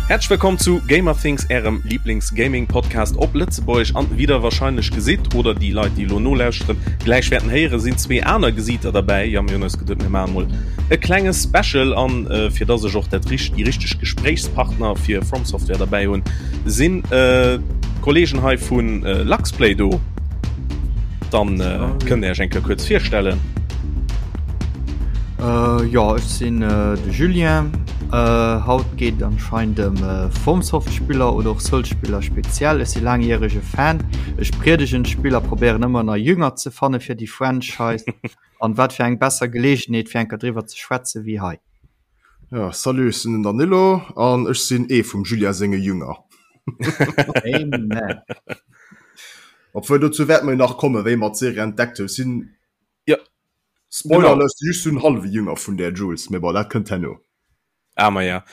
Häerzlech wëllkomm zu Gamerthings, ärem Lieblings-Gaming-Podcast op Lëtzebuergesch. An wéi der wahrscheinlech gesitt, oder déi Leit, déi elo nolauschteren, gläich wäerten héieren, sinn zwee aner Gesiiter derbäi. Jo, mir hunn eis geduet, mir maache mol e klenge Special. An fir dass ech och dat richt, déi richteg Gespréichspartner fir From Software derbäi hunn, sinn d'Kollegen hei vu Luxplay do. Dann kënnt Dir Iech eng Kéier kuerz virstellen. Jo, ech sinn de Julien. Haut geet et anscheinend ëm FromSoft-Spiller oder och Souls-Spiller speziell. Ech si laangjärege Fan. Ech priedegen d'Spill a probéieren ëmmer nei Jünger ze fanne fir déi Franchise. An wat fir eng besser Geleegenheet fir eng Kéier driwwer ze schwätze wéi hei. Ja, salut, ech sinn den Danilo an ech sinn ee vum Julien senge Jünger. Amen. Obwuel dozou wäerte mer jo nach kommen, wéi mer d'Serie entdeckt hunn. Ech sinn, Ja, Spoiler genau. Alert, just en hallwe Jünger vun där Jules, mee bon, dat kënnt herno. Ah, ma ja.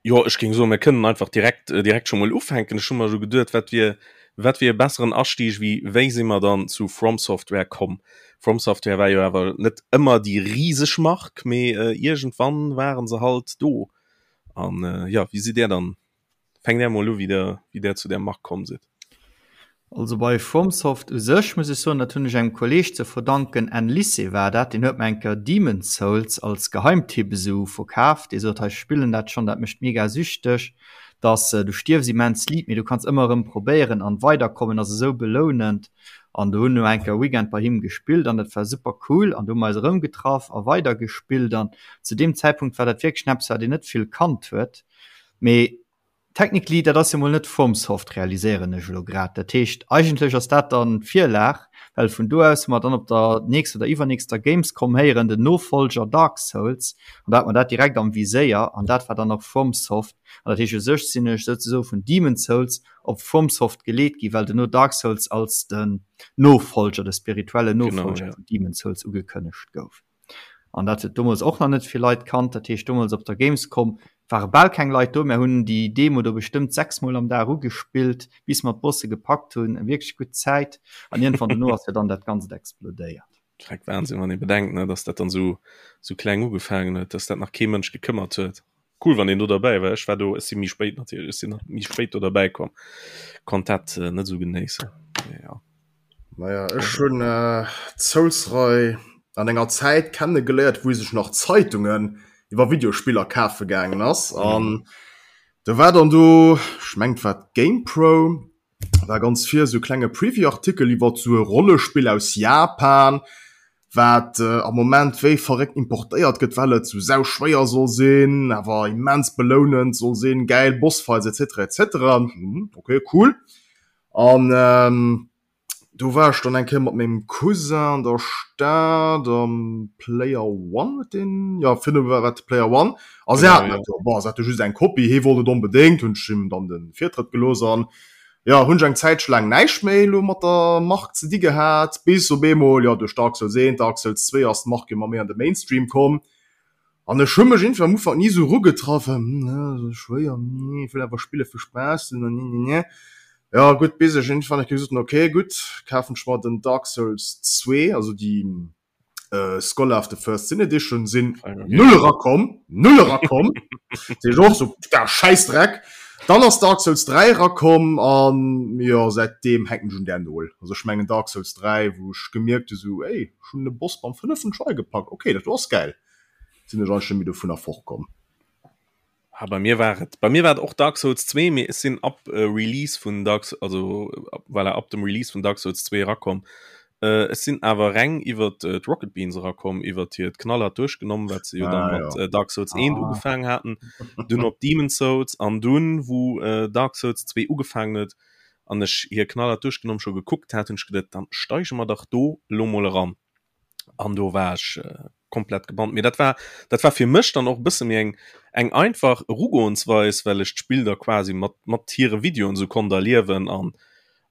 Jo, ech géing soen, mir kënnen einfach direkt, äh, direkt scho mol ufänken. Ech hu mer scho geduet, wat wier, wat wier e besseren Astieg wéi wéi si mer dann zu From Software komm? From Software war jo awer net ëmmer déi riseg Mark, mee äh, iergendwann waren se halt do. An äh, ja, wéi sidd Där dann Fänkt Där mol u wéi der wéi der zu där Mark komm sidd. Also bei FromSoft u sech muss ech soen, dat hunn ech engem Kolleeg ze verdanken, Enn Lycée war dat, deen huet mer eng Kéier Demon's Souls als Geheimtipp esou verkaaft. Dee sot, hei ech spillen dat schonn, dat mécht mega süchteg, dass du stierfs immens liit, mee du kanns ëmmer erëm probéieren an weiderkommen, ass esou belounend. An do hunn no eng Kéier Weekend bei him gespillt an dat war super cool an do hu mer eis erëm getraff a weider gespillt an zu deem Zäitpunkt war dat wierklech eppes wat een net vill kannt huet. Mee technically, dat ass jo mol net FromSoft, realiséieren ech elo grad. Dat heescht, eigentlech ass dat dann d'Virlag, well vun do aus hu mer dann op der nächster oder iwwernächster Gamescom héieren, den Nofollger Dark Souls, an da hat mer dat direkt am Viséier, an dat war dann och FromSoft. An dat heescht, u sech sinn ech souzesoe vun Demon's Souls op FromSoft geleet gi, well duerno Dark Souls als den Nofollger, de spirituellen Nofollger vun Demon's Souls ugekënnegt gouf. An dat huet domols och nach net vill Leit kannt. Dat heescht domols op der Gamescom ware bal keng Leit do. Mär hunn déi Demo do bestëmmt 6 mol am Dag ugespillt, bis mer d'Bosse gepackt hunn. Eng wierklech gutt Zäit. An iergendwann dono ass jo dann dat Ganzt explodéiert. Dreck Wahnsinn, wann ee bedenkt, ne, dass dat dann esou esou kleng ugefaangen huet, dass dat nach kee Mënsch gekëmmert huet. Cool, wann een do derbäi war. Ech war do, ech si méi spéit natierlech, ech sinn nach méi spéit do derbäi komm, konnt dat net esou genéissen. Mee ja. Naja, ech hunn d'Souls-Rei an enger Zäit kenne geléiert, wou ee sech nach Zeitungen iwwer Videospiller kafe gaangen ass. An do war dann do, ech mengen et war d'GamePro, war ganz vir esou klenge Preview-Artikel iwwer esou e Rollespill aus Japan, wat am Moment wéi verréckt importéiert gëtt, well et sou sau schwéier soll sinn, awer immens belounend soll sinn, gäil Bossfights etc etc. Hm, okay, cool. An do war ech dann eng Kéier mat mengem Cousin an der Stad am Player One huet deen, jo virdu war et Player One a se haten dat do. Bon, se hate just eng Kopie, hee wollt et onbedéngt, hunn ech him dann de Virtrëtt gelooss an jo, hunn ech eng Zäitche laang näischt méi elo mat der Mark ze di gehat, bis op eemol, jo, duerch Dark Souls 1, Dark Souls 2 ass d'Mark ëmmer méi an de Mainstream komm an ech hu mech iergendwéi am Ufank ni esou erugetraut, well, hm, esou schwéier, nee, ech wëll awer spille fir Spaass, nee, nee, nee. Jo, gutt, bis ech iergendwann eng Kéier gesot hunn, ok, gutt, kafen ech mer den Dark Souls 2, also déi Scholar of the First Sin Edition, sinn null erakomm, null erakomm, seet och so, da Schäissdreck. Dann ass Dark Souls 3 erakomm an jo, säitdeem hänken ech un där Nol. Also ech mengen Dark Souls 3, wou ech gemierkt hu sou, ey, ech hunn de Boss beim fënneften Try gepackt, ok, dat do ass gäil, sinn ech eigentlech net méi dovunner fortkomm. Ah, bei mir war et bei mir war et och Dark Souls 2, mee ech sinn ab äh, Release vun Dark also voilà, ab dem Release vun Dark Souls 2 erakomm. Äh, ech sinn awer reng iwwer äh, d'Rocket Beans erakomm, iwwer hiert Knallhart duerchgenommen, wat se jo ah, dann mat ja. äh, Dark Souls 1 ah. ugefaangen haten, dunn op Demon's Souls an dunn wou äh, Dark Souls 2 ugefaangen huet an ech hir Knallhart duerchgenommen scho gekuckt hat, hunn ech geduet, dann steige mer dach do lo mol eran. An do war ech äh, komplett gebannt. Mee dat war dat war fir mech dann och e bësse méi eng eng einfach Erugoensweis, well ech d'Spill da quasi mat mat hire Videoen esou konnt erliewen an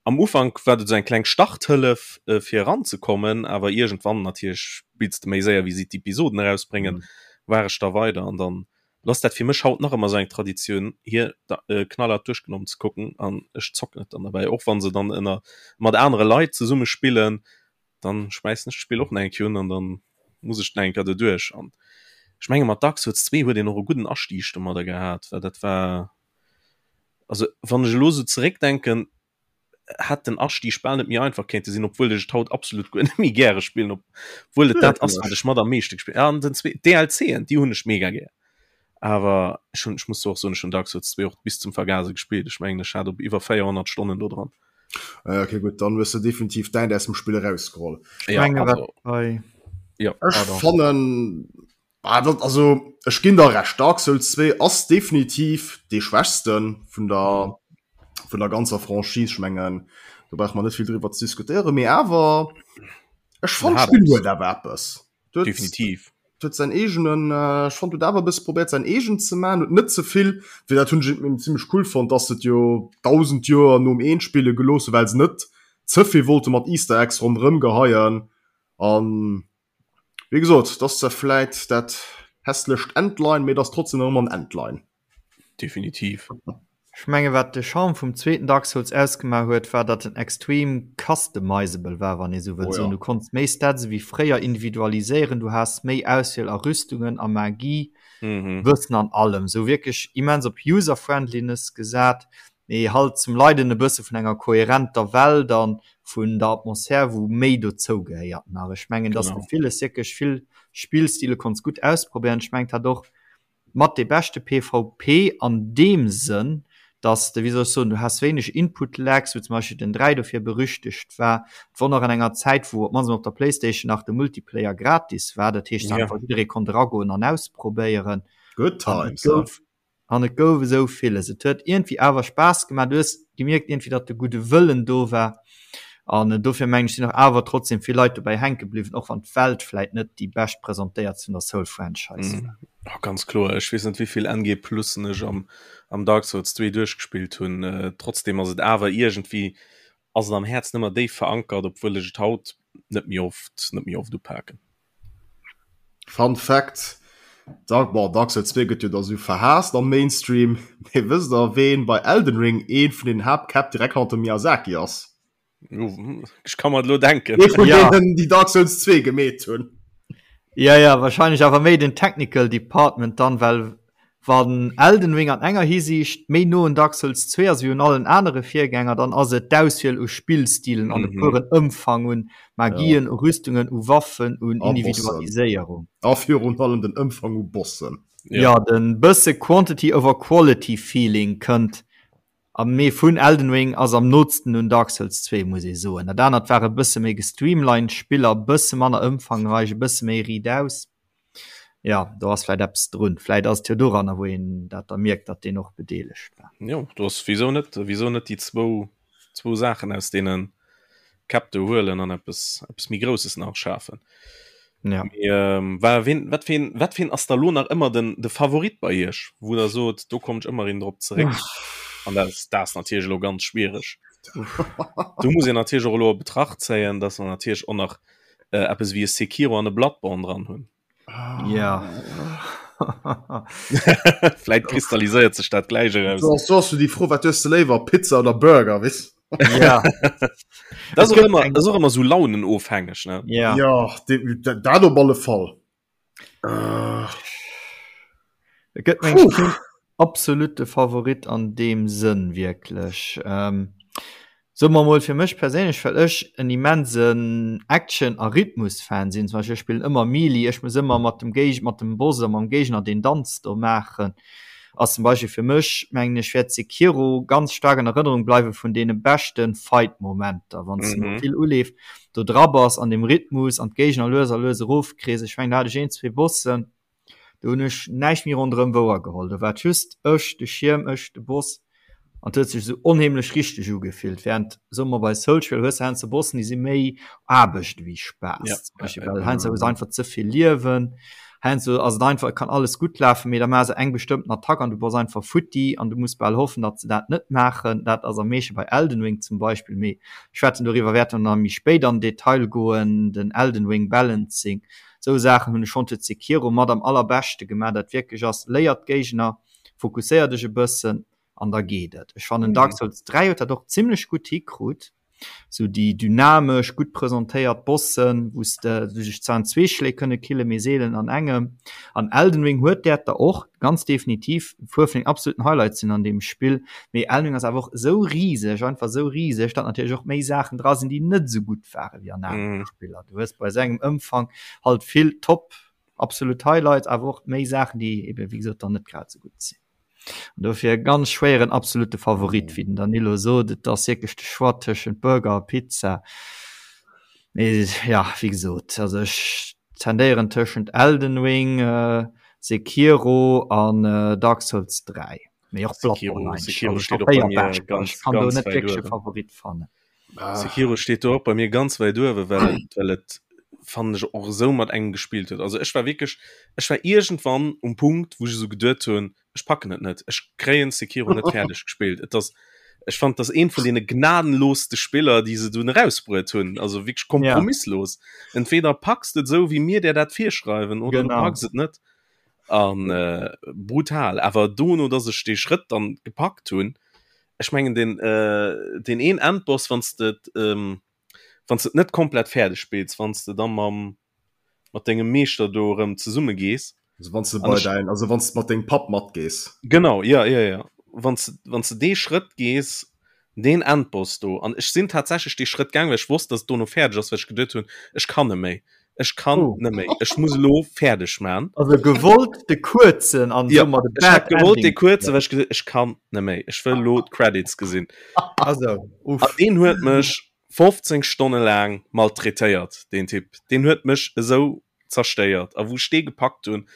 am Ufank war dat esou eng kleng Starthëllef äh, fir eranzekommen, awer iergendwann natierlech spills de méi séier wéi si d'Episoden erausbréngen, war ech da weider an dann ass dat fir mech haut nach ëmmer esou eng Traditioun hir da äh, knallhart duerchgenommen ze kucken an ech zocken et dann derbäi, och wann se dann ënner mat anere Leit zesumme spillen, dann schmeissen ech d'Spill och nach eng Kéier un an dann muss ech nach eng Kéier doduerch. An ech menge mat Dark Souls 2 huet een och e gudden Astieg domadder gehat, well dat war. Also wann ech elo sou zeréckdenken, hätt den Astieg bal net méi einfach kéinte sinn, obwuel ech et haut absolut guer net méi gäre spillen, obwuel et dat ass, wat ech mat am meeschte gespillt. Ja, an den zwee DLCen, déi hunn ech mega gär. Awer ech hunn, ech muss och soen, ech hunn Dark Souls 2 och bis zum Vergase gespillt. Ech mengen, ech hat op iwwer 400 Stonnen do dran. Ah, okay, gutt, dann hues de definitiv däint aus dem Spill erausgeholl. Ja, menge, also, bei... ja, ech fannen, ah, dat, also, ech ginn der recht, Dark Souls 2 ass definitiv dee schwächsten vun der, vun der ganzer Franchise. Ech mengen, do brauch man net vill driwwer ze diskutéieren, mee awer, ech fand d'Spill huet awer eppes. Huet, definitiv huet säin eegenen äh, ech fand huet awer e bësse probéiert säin eegen ze man, huet net ze vill, fir dat hunn ech eben zimmlech cool fonnt, dass se et jo 1000 Joer nom eent spille gelooss hu well se net ze vill wollte mat Easter Eggs ronderëm geheien an wéi gesot, et ass zwar vläit dat hässlecht Endline, mee et ass trotzdem nach ëmmer en Endline. Definitiv. Ech menge wat de Charme vum zweeten Dark Souls ausgemaach huet, war datt en extrem customizable war, wann ee sou wëllt soen. Du konns méi Stats ewéi fréier individualiséieren, du has méi Auswiel a Rüstungen, a Magie, Wëssen an allem. Sou wierklech immens op User-Friendliness gesat, mee halt zum Leiden e bësse vun enger koherenter Welt a vun der Atmosphär, wou méi dozou gehéiert nach. Ech mengen, datt s de villes, wierklech vill Spillstile konns gutt ausprobéieren. Ech mengen, et hat och mat dee beschte PvP an deem Sënn, dass de, wéi soll ech soen, du has wéineg Input Lags, wou zum Beispill den 3 dofir berüchtegt war. Et wor nach an enger Zäit, wou op d'mannst emol op der Playstation nach de Multiplayer gratis war, dat heescht einfach jidderee konnt eragoen an ausprobéieren. Good times, he? An et gouf esou villes. Et huet iergendwéi awer Spaass gemaach. Du hues gemierkt iergendwéi, datt de gudde Wëllen do war. An dofir mengen ech, sinn och awer trotzdem vill Leit dobäi hänke bliwwen, och wann d'Welt vläit net déi bescht presentéiert vun der Soul-Franchise war. Oh, ganz kloer. Ech weess net wéivill NG Plussen ech am, am Dark Souls 2 duerchgespillt hunn. Äh, trotzdem ass et awer iergendwéi ass et am Häerz nëmmer déif verankert, obwuel ech et haut net méi oft, net méi oft upaken. Fun Fact, Dark, bon, Dark Souls 2 gëtt jo da sou verhaasst am Mainstream, mee wësst der ween bei Elden Ring een vun den Haaptkäpp direkt hannert dem Miyazaki ass? Ech ka mer et lo denken. Ee vun Ja. deenen déi Dark Souls 2 gemeet hunn. Ja, ja, wahrscheinlech awer méi den Technical Department dann, well wann Elden Ring an enger Hisiicht méi no un Dark Souls 2 ass wéi un allen anere Virgänger, dann ass et d'Auswiel u Spillstilen an de puren Ëmfang un Magien, u Rüstungen, u Waffen, un Individualiséierung. A virun allem den Ëmfang u Bossen. Ja, den bësse Quantity over Quality Feeling kënnt a mee vun Elden Ring ass am nootsten un Dark Souls 2, muss ee soen. Dat anert war e bësse méi gestreamlined Spiller, e bësse manner ëmfangreich, e bësse méi riit aus. Ja, do ass vläit eppes drun. Vläit ass et jo doranner, wou een dat da mierkt, datt deen och bedeelegt war. Jo, do ass, wisou net, wisou net déi zwou, zwou Saachen aus deene Käpp do huelen an eppes, eppes méi Grousses nach schafen. Ja. Mee, ähm, wa, ween, wat fir een, wat fir een ass da lo nach ëmmer den, de Favorit bei Iech, wou der sot, do kommt ech ëmmer erëm drop zeréck? An dat ass, dat ass natierlech elo ganz schwiereg. Do muss een natierlech och elo a Betracht zéien, datt mer natierlech och nach äh, eppes wéi e Sekiro an e Bloodborne dran hunn. Ja. Vläit kristalliséiert sech dat gläich eraus. Du hast du die Fro, wat hues du léiwer, Pizza oder Burger, wis? Ja. Das ist auch immer, das ist auch immer so launenofhängig, ne? Ja. Ja, dat op alle Fall. Äh. Et gëtt meng keen absolute Favorit an deem Sënn wierklech. Ähm, soe mer mol fir mech perséinlech, well ech en immensen Action a Rhythmus-Fan sinn, zum Beispill ech spillen ëmmer Melee, ech muss ëmmer mat dem Géig mat dem Boss oder mam Géigner deen Danz do maachen, ass zum Beispill fir mech, mengen ech, wäert Sekiro ganz staark an Erënnerung bleiwe vun deene beschte Fight-Momenter, wann s de no vill Uleef do dra bass an dem Rhythmus an d'Géigner lues a lues erofkriss. Ech mengen do hat ech een, zwee Bossen, do hunn ech näischt méi ronderëm wouer geholl. Do war et just ech, de Schierm, ech, de Boss an et huet sech esou onheemlech richteg ugefillt. Während, soe mer, bei Soulsspiller hues de heiansdo Bossen, déi si méi Aarbecht ewéi Spaass, Ja, zum Beispill, well heiansdo hues de einfach ze vill Liewen. Heiansdo ass et einfach, et kann alles gutt lafen, mee da maache se eng bestëmmten Attack an du bass einfach futti an du muss bal hoffen, datt se dat net maachen. Dat ass am meeschte bei Elden Ring zum Beispill, mee ech schwätzen doriwwer wäerte mer nach méi spéit an Detail goen, den Elden Ring Balancing. Esou Saachen hunn ech schonn zu Sekiro mat am allerbeschte gemaach, dat wierklech ass, léier d'Géigner, fokusséier dech e bëssen an da geet et. Ech fannen Dark Souls 3 huet dat och zimmlech gutt hikrut. Sou déi dynamesch, gutt presentéiert Bossen, wou s de dech zwar an zwee Schléi kënne killen, mee seelen an engem. An Elden Ring huet däerter och, ganz definitiv, e puer vun den absoluten Highlights sinn an deem Spill. Mee Elden Ring ass awer och esou riseg, einfach esou riseg, datt natierlech och méi Saachen dra sinn, déi net esou gutt ware wéi an anere Spiller. Du hues bei esou engem Ëmfang halt vill top absolut Highlights, awer och méi Saachen, déi eben, wéi gesot, dann net grad esou gutt sinn. An dofir e ganz schwéieren absolute Favorit, wéi den Danilo sot, et ass wierklech de Choix tëschent Burger a Pizza. Mee ja, wéi gesot, also ech tendéieren tëschent Elden Ring, Sekiro an Dark Souls 3. Mee och Bloodborne eigentlech. Sekiro steet och bei mir ganz, Ech kann do ganz net wäit wierklech e uewen. Favorit fannen. Sekiro steet do och bei mir ganz wäit uewen, well et, well et fannen ech och esou mat engem gespillt huet. Also ech war wierklech, ech war iergendwann um Punkt, wou ech esou geduet hunn, ech packen et net, ech kréien Sekiro net fäerdeg gespillt. Et ass, ech fand, dat ass eent vun deene gnadenlooste Spiller, déi se dunn erausbruet hunn, also wierklech kompromisslos. Entweder packs de et esou, wéi mir där dat virschreiwen, oder du packs et net. An brutal. Awer dono, dass ech dee Schrëtt dann gepackt hunn, ech mengen den äh, den een Endboss wann de ähm, wann de net komplett fäerdeg spills, wann de dann mam mat dengem Meeschter do erëm zesumme gees. Also wann du bei dein, also wann du mat dengem Papp matgees. Genau, ja, ja, ja. Wann du, wann du dee Schrëtt gees, deen Endboss do, an ech sinn tatsächlech dee Schrëtt gaang, well ech wosst, dass et dono fäerdeg ass, well ech geduet hunn, ech kann net méi. Ech kann oh. net méi. Ech muss elo fäerdeg man. Also gewollt de kuerzen an ja, de ech hat gewollt de kuerzen, well ech gesot ech kann net méi. Ech wëll lo d'Credits gesinn. Also, uff. An deen huet mech 15 Stonne laang maltraitéiert, deen Typ. Deen huet mech esou zerstéiert. A wou ech dee gepackt hunn,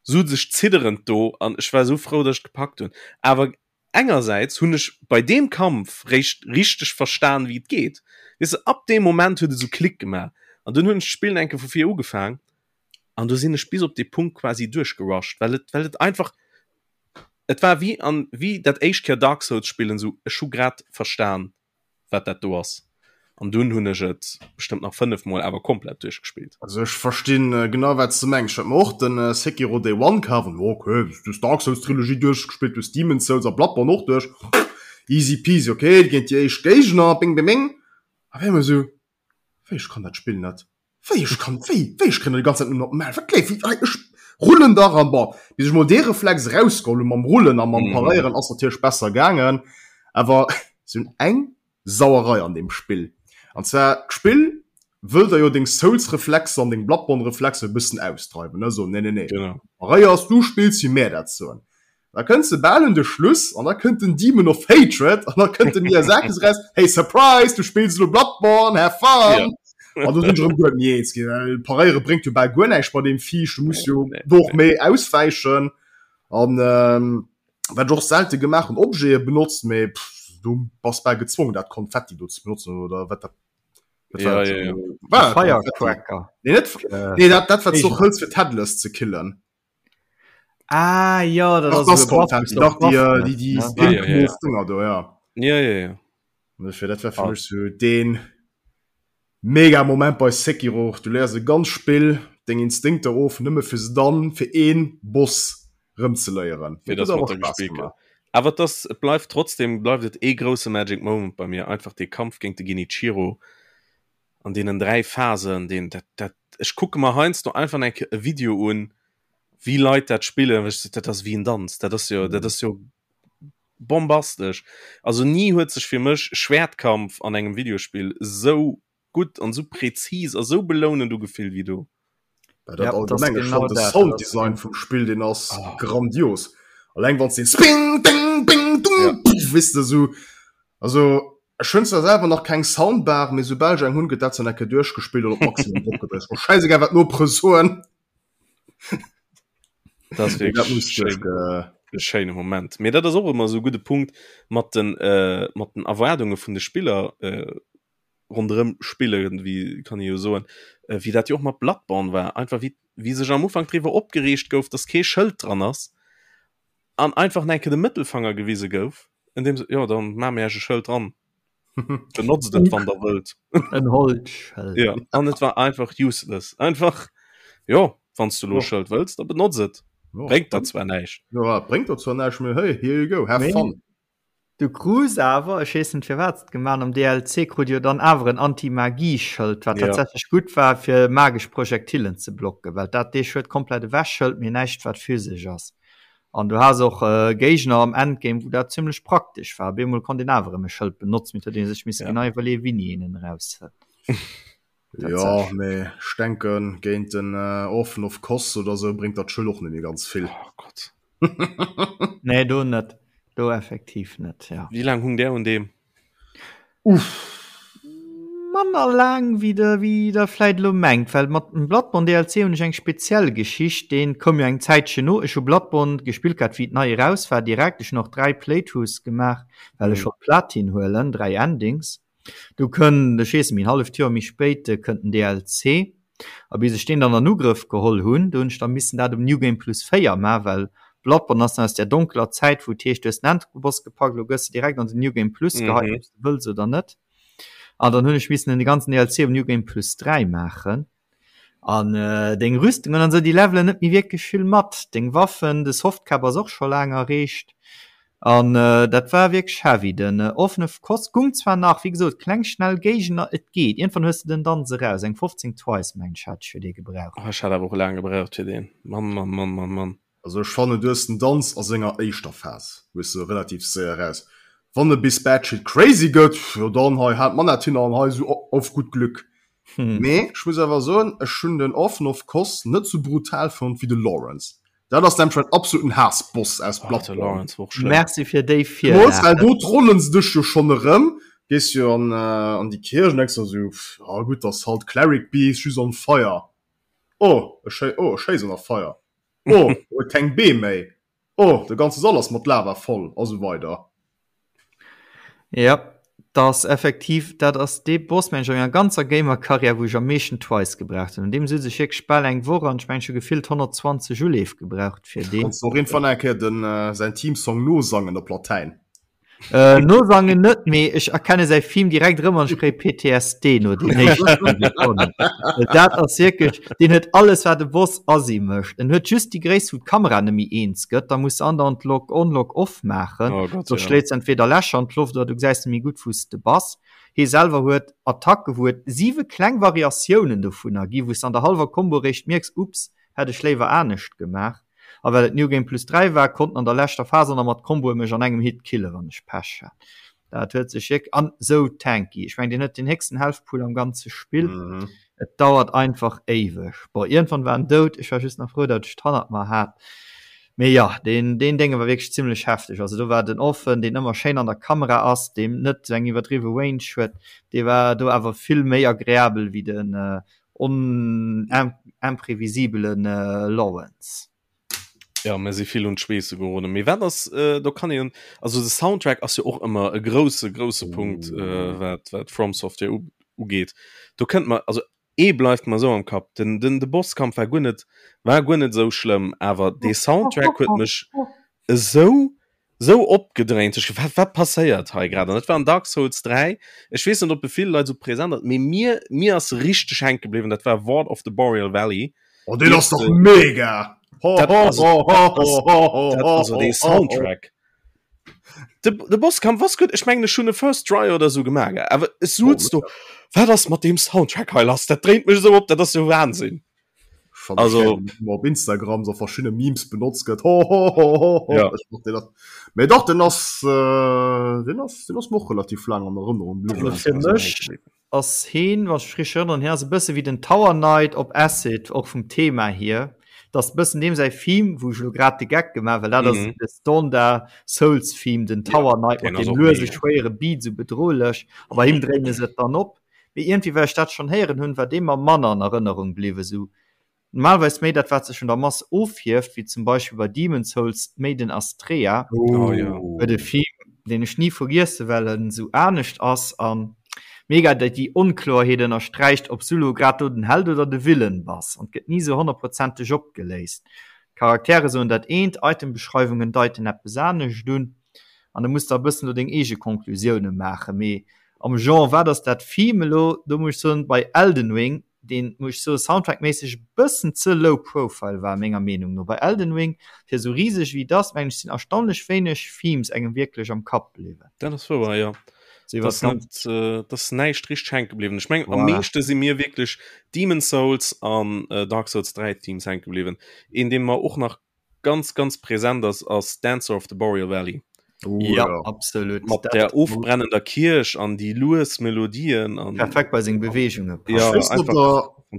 sot ech zidderend do an ech war esou frou, datt ech gepackt hunn. Awer Engersäits hunn ech bei deem Kampf réischt richteg verstan wéi et geet. Weess de, ab deem Moment huet et esou Klick gemaach an dunn hunn ech d'Spillen eng Kéier vu vir ugefaang an do sinn ech bis op dee Punkt quasi duerchgerusht, well et well et einfach et war wéi an wéi dat éischt Kéier Dark Souls spillen, esou ech hu grad verstan wat dat do ass an dunn hunn ech et bestëmmt nach 5 mol awer komplett duerchgespillt. Also ech verstinn genau wat s de mengs. Ech hat mer och den Sekiro Day One kaf an ok, du hues Dark Souls Trilogie duerchgespillt, du hues Demon's Souls a Bloodborne och duerch, easy peasy, ok, géint déi éischt Géigner, bing bing bing, a wéi emol esou, wéi ech kann dat Spill net. Wéi ech kann, wéi, wéi ech kréien déi ganz Zäit nëmmen op d'Maul, wat léif, wéi, ech rullen dach an, bon, bis ech mol dee Reflex erausgeholl hunn mam Rullen a mam Paréieren ass natierlech besser gaangen, awer se hunn eng Sauerei an deem Spill, an zwar d'Spill wëll der jo deng Souls-Reflexer an deng Bloodborne-Reflexer e bëssen ausdreiwen, ne, soen, nee, nee, nee, paréiers, du spills wéi mär dat soen. Da kënns de bal un de Schluss an da kënnt den Demon of Hatred an da kënnt de Miyazaki so raus, hey surprise, du spills elo Bloodborne, have fun! Ja. An do sinn ech erëm guer net méi eens ginn, well paréiere bréngt jo bal guer näischt bei deem Viech, du muss jo do och méi auswäichen an ähm, wat ech och selte gemaach hunn, Objete benotzt, mee pff, du bass bal gezwongen dat Konfetti do ze benotzen oder wat dat wat Ja, war dat? ja, ja. War dat Konfetti? Firecracker. Nee, net, Äh, nee dat, dat wat du och hëls fir d'Headless ze killen. Ah ja, dat Dach, ass das esou e Buff, Konfetti, wou dach, du déi, Buff äh, déi, déi ne? Ja, ja, ja. pink Dinger do, ja. Ja, ja, ja. Und dafür, dat war fir Ah. mech so den mega Moment bei Sekiro. Du léiers e ganz Spill deng Instinkter of, nëmme fir se dann fir een Boss rëm ze léieren. Fir Dat dass huet mat awer der Spaass gespillt gëtt. gemaach. Awer et ass, et bleift trotzdem bleift et ee grousse Magic Moment bei mir, einfach dee Kampf géint de Genichiro an deenen 3 Phasen, deen, dat, dat, ech kucke mer heiansdo einfach eng Kéier e Video un, wéi Leit dat spillen, wech dat ass wéi en Danz, dat ass jo, dat ass jo bombastesch. Also ni huet sech fir mech Schwertkampf an engem Videospill esou gutt an esou präzis a sou belounend ugefillt wéi do. Ja, dat Ja, dat ass allgemeng, ech genau fand de dat, dat ass Sounddesign vum Spill, deen ass Oh. grandios. Alleng wann s den Sping, ding, bing, dung, Ja. pff, weess de, esou, also Ech hunn zwar selwer nach keng Soundbar, mee soubal ech eng hunn, gëtt dat zwar necke duerchgespillt an op Maximum eropgedréckt. Ass mer schäisegal, wat d'Nopere soen. Dat ass Mee dat wierklech muss schéin, duerchge. e schéine Moment. Mee dat ass och ëmmer esou e gudde Punkt mat den, mat den Erwaardunge vun de Spiller ronderëm Spiller, wéi kann ee jo soen, wéi dat jo och mat Bloodborne war, einfach wéi, wéi sech am Ufank driwwer opgereegt gouf, dass kee Schëld dran ass an einfach enke de Mëttelfanger gewise gouf, in dem se, jo, dann maache mir iech e Schëld dran, benotzt et, wann der wëllt. En Holzschëld. Ja, an et war einfach useless. Einfach, jo, wann s du elo e Schëld wëlls, da benotz et. Jo. Bréngt der zwar näischt. Jo, bréngt der zwar näischt, mee hey, here you go, have Mee fun. Du krus awer, ech weess net firwat se et gemaach hunn, am DLC krut jo dann awer en Anti-Magie-Schëld, wat tatsächlech gutt war fir magesch Projektilen ze blocken, well dat dee Schëld komplett ewechhëlt, mee näischt wat physesch ass. An du has och Géigner am Endgame wou dat zimmlech praktesch war. Op eemol konnt een awer erëm e Schëld benotzen, mee et huet ee sech misse genau iwwerleeën wéini een en eraushëlt. Jo, mee ech denken géint den Orphan of Kos oder sou bréngt dat Schëld och net méi ganz vill. Oh Gott. Nee, do net. Do effektiv net, ja. Wéi laang hung där un deem? Uff. Manner laang wéi der wéi der vläit elo mengt, well mat dem Bloodborne DLC hunn ech eng speziell Geschicht, deen koum jo eng Zäitchen no. Ech hu Bloodborne gespillt gehat wéi et nei eraus war direkt. Ech hunn och 3 Playthroughs gemaach, well ech wollt Platin huelen, 3 Endings. Du kënnt, ech weess net méi, en halleft Joer méi spéit kënnt den DLC. A bis ech deen dann an Ugrëff geholl hunn, do hunn ech da missen dat um New Game Plus 4 maachen, well Bloodborne ass nach aus där donkeler Zäit, wou et heescht, du hues den Endboss gepackt, elo gëss de direkt an den New Game Plus geheit, ob s de wëlls oder net. An dann hunn ech missen den ganzen DLC um New Game Plus 3 maachen. An deng Rüstungen an esou, déi levelen net méi wierklech vill mat. Deng Waffen, de Softcap ass och scho laang erreecht. An dat war wierklech heavy. Den Orphan of Kos gung zwar nach, wéi gesot, kleng schnell Géigner, et geet. Iergendwann hues de den Danz eraus. Eng 15 Twice, mengen ech, hat ech fir dee gebraucht. Oh, ech hat awer och laang gebraucht fir deen. Mann, Mann, Mann, Mann, Mann. Also ech fannen du hues den Danz a senger éischter Phas hues de relativ séier eraus. Wann e bis batshit crazy gëtt, jo dann hei haalt d'Manett hin an hei sou auf gut Glück. Mee ech muss awer soen, ech hunn den Orphan of Kos net sou brutal fonnt wéi de Lawrence. Dat ass nämlech mäin absoluten Haassboss aus Bloodborne. Merci fir déi Virlag. Well do trollen se dech jo schonn erëm, gees jo an an déi Kierch an denks der sou, ah gutt, ass halt Cleric Beast just on fire. Oh ech oh ech schéissen a Feier. Oh, e huet keng Bee méi. Oh, de ganze Sall ass mat Lava voll a sou weider. Ja, dat ass effektiv, dat ass dee Boss, mengen ech, a menger ganzer Gamer-Karriär, wou ech am meeschten Twice gebraucht hunn. Un deem sutz ech wierklech bal eng Woch an ech mengen, ech hu gefillt 120 Uleef gebraucht fir deen. Kanns de och iergendwann eng Kéier den, säin Theme-Song nosangen op Latäin? Äh, nosangen net, mee ech erkenne säi Theme direkt erëm an ech kréie PTSD no den éischten Sekonnen. Well dat ass wierklech, deen huet alles wat e Boss assi mécht. En huet just déi Gréisst wou d'Kamera net méi eens gëtt, da muss de andauernd Lock on, Lock off maachen, Oh Gott, soss ja. schléits entweder Lächer an d'Loft oder du gesäis net méi gutt wou s de bass. Hie selwer huet Attacke wou et siwe kleng Variatiounen dovunner gi wou s de an der hallwer Combo réischt mierks, ups, hätt ech léiwer anescht gemaach. A well et New Game Plus 3 war, konnt en an der leschter Phase och nach mat Comboe mech an engem Hit killen, wann ech Pech hat. Dat huet sech wierk an sou tanky. Ech mengen, deen huet den héchsten Health Pool am ganze Spill. Mhm. Et dauert einfach éiweg. Bon, iergendwann war en dout. Ech war just nach frou, datt ech d'hannert mer hat. Mee jo, deen, deen Dénge war wierklech zimmlech hefteg. Also do war den Orphan, deen ëmmer schéin an der Kamera ass, deem net sou eng iwwerdriwwe Range huet, dee war do awer vill méi agreabel wéi den On imprevisibelen Lawrence. Ja mir si vill un d'Schweesse geroden. Mee wat ass äh, do kann een also de Soundtrack ass jo och ëmmer e grousse grousse Punkt äh, wat wat From Software u ugeet. Do kënnt mer also ee bleift mer sou am Kapp den den de Bosskampf war guer net war guer net sou schlëmm, awer dee Soundtrack huet mech esou sou opgedréint. Ech wat wat passéiert hei grad? An dat war an Dark Souls 3. Ech weess net ob e vill Leit sou present ass, mee mir mir ass richteg hänke bliwwen, dat war Ward of the Boreal Valley. Oh deen ass dach mega! Ho Dat ho ass ho ho dat ass ho ho dat ho also ho dee ho ho. Soundtrack. De de Bosskampf ass gutt, ech mengen ech hunn e First Try oder sou gemaach, awer ech Oh, suz do, wat ass mat deem Soundtrack hei lass? Dat dréint mech esou op, dat ass jo Wahnsinn. Also op Instagram so verschiedene Memes benutzt gëtt ho, ho, ho, ho, ho. Ja. Dat. Mee dach den ass äh, den ass den ass noch relativ lang an Erënnerung bliwwen. Also fir mech ass heen, wann ech rich erënneren, hien ass e bësse wéi den Tower Knight op Acid, och vum Thema hier. Dat ass e bëssen deem säi Theme, wou ech elo grad de Geck gemaach, well dat ass Mhm. de Standard Souls Theme, den Tower Knight deen mat ass deem och luese mega. schwéiere Beat, sou bedrohlech. A bei him dréine se et dann op. Mee iergendwéi, well ech dat schonn héieren hunn, war dee mer manner an Erënnerung bliwwen. Sou normalerweis méi dat, wat sech vun der Mass ofhieft, wéi zum Beispill bei Demon's Souls d'Maiden Astraea. Oh jo. Huet e Film, deen ech ni vergiessen, well en sou anescht ass a mega déi déi Onkloerheet ënnersträicht, ob s du lo grad do den Held oder de Villain bass. An et gëtt ni sou honnertprozenteg opgeléist. D'Charaktere soen dat eent, Itembeschreiwungen deiten eppes anescht un. An da muss de e bëssen do deng eege Conclusioune maachen. Mee am Genre, wat ass dat Theme elo? Do muss ech soen, bei Elden Ring. Deen, muss ech soen, soundtrackméisseg e bëssen ze low profile war, menger Meenung no. Bei Elden Ring, fir esou riseg wéi et ass, mengen ech, sinn erstaunlech wéineg Themes engem wierklech am Kapp bliwwen. Dat ass wouer, jo. So iwwer dat äh, ass näischt richteg hänke bliwwen. Ech mengen, am meeschte si mir wierklech Demon's Souls an äh, Dark Souls 3 Themes hänke bliwwen. Een, dee mer och nach ganz ganz präsent ass ass Dancer of the Boreal Valley. Oh, ja, ja. absolut. Mat der ofbrennender Kierch an déi lues Melodien an perfekt bei seng Beweegungen. Ja,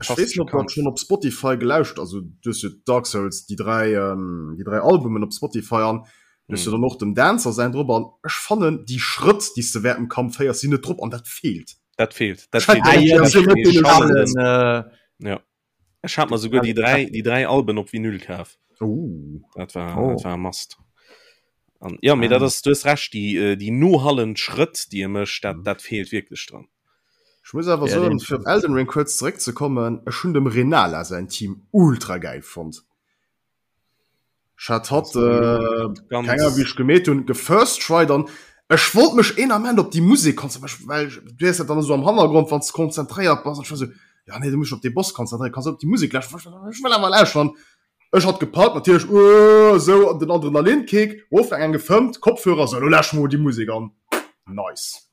schon op Spotify gelauscht also du Dark Souls die drei ähm, die drei Albumen op Spotify an du mm. dann noch dem Dancer sein drop an ech fannen die Schrëtt die du während dem Kampf féiers sinn net drop an dat fehlt. Dat fehlt. Dat fehlt. Ah, ja, dat äh, ja. Ech hat mer souguer déi 3 déi 3 Alben op Vinyl kaf. Oh. Dat war oh. dat war must. An ja, mee ah. dat ass du hues recht, déi äh, déi nohallend Schrëtt, déi e mécht, dat, mhm. dat feelt wierklech dran. Ech muss awer ja, soen, fir op Elden Ring kuerz zeréckzekommen, ech hunn dem Renala säin Team ultra geil fonnt. Ech hat hatt äh, kenger wéi ech gemeet hunn gefirst tried an ech wollt mech een Ament op déi Musek konzentréieren, well du hues dat dann esou am Hannergrond wann s de konzentréiert bass an ech war esou, ja nee du muss dech op dee Boss konzentréieren, kanns op déi Musek lauschteren, ech wëll awer lauschteren. Ech hat gepackt natierlech uh esou an den Adrenalinkick, ofgaang eng gefëmmt, Kopfhörer, sou elo lauschteren mer mol déi Musek an. Nice.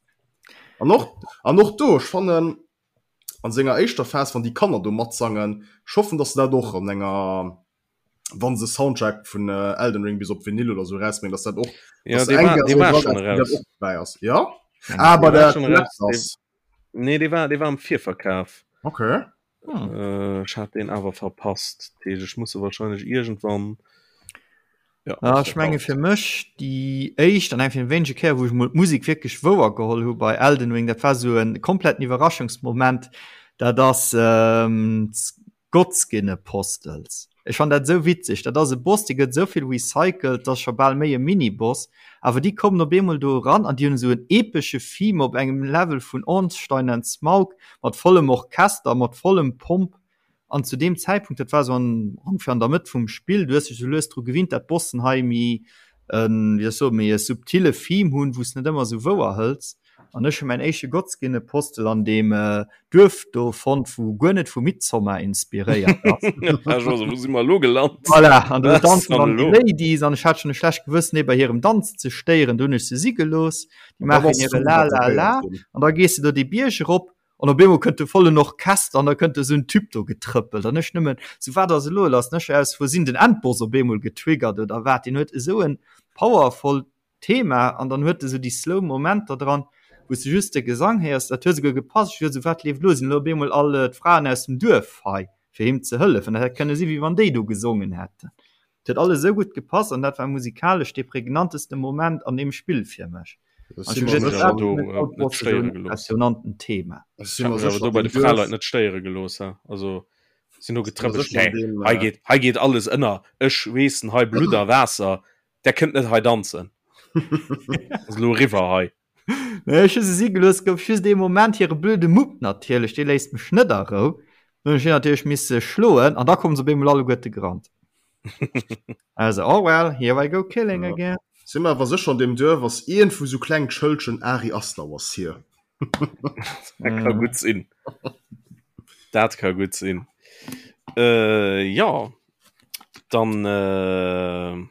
An och an och do ech fannen an senger éischter Phas wann déi Kanner do matsangen, ech hoffen dass se dat och an enger wann se Soundtrack vun äh, Elden Ring bis op Vinyl oder so rausbringen, dass dat och ja, dass war, dee war schon raus. Och dabei ass. Ja? Ah, bei der schon raus. Nee, dee war, dee war am Virverkauf. Okay. Hm. Äh, ech hat den awer verpasst. Ech muss wahrscheinlich irgendwann Ja, ah, ech menge fir mech déi éischt an eng vun wéinege Kéier, wou ech mol d'Musek wierklech wouer geholl hu bei Elden Ring, dat war sou en kompletten Iwwerraschungsmoment, dat ass ähm, Godskin Apostles. Ech fann dat esou witzeg. Dat ass e Boss, dee gëtt esou vill recycelt, dat ass scho bal méi e Mini-Boss. Awer déi kommen op eemol do eran an déi hunn esou en epesche Theme op engem Level vun Ornstein and Smaug mat vollem Orchester, mat vollem Pomp. An zu deem Zäitpunkt, dat war esou an ongeféier an der Mëtt vum Spill, du hues dech esou lues dru gewinnt, dat d'Bossen hei méi en, wéi soll ech soen, méi e subtile Theme hunn, wou s de net ëmmer esou wouer hëls. An ech hu mäin éischte Godskin Apostel an deem Duerf do fonnt, wou guer net vu Midsommar inspiréiert ass. Wou si mer elo gelant? Voilà, an do danzen dann déi Ladies an ech hat schonn e schlecht Gewëssen, déi bei hirem Danz ze stéieren. Do hunn ech se si gelooss. Déi maachen hire La la la an da gees de do dee Bierg erop An op eemol kënnt de vollen Orchester an da kënnt esou en Typ do getrëppelt an ech nëmmen sou, wat ass elo lass? An ech aus Versinn den Endboss op eemol getriggert oder wat. Deen huet esou en powervoll Thema an dann huet e sou déi slow Momenter dran, wou s de just de Gesang héiers. Dat huet esouguer gepasst. Ech duecht esou, wat leeft elo? Sinn elo op eemol all d'Fraen aus dem Duerf hei fir him ze hëllefen? Dat hätt kënne si wéi wann déi do gesongen hätten. Et huet alles esou gutt gepasst an dat war musikalesch dee prägnanteste Moment an deem Spill fir mech. Impressionanten Thema. Do bei de Fraleit net stéiere gelooss also sinn no getrëppelt. Hei geet hei geet alles ënner. Ech weessen hei Blutt a Waasser, der kënnt net hei danzen. Ass elo eriwwer hei. Nee, ech hu se si gelooss, gouf just ee Moment hire blöde Mupp natierlech, dee léisst mech net a Rou. Dann hunn ech hien natierlech misse schloen an da kommen se op eemol alleguerte gerannt. Also, oh well, here I go killing ja. again. Si mer awer sécher an deem Duerf ass iergendwou sou klengt Schëldchen Ari Aster was here. Dat ka gutt sinn. Dat ka gutt sinn. Äh, ja, dann äh,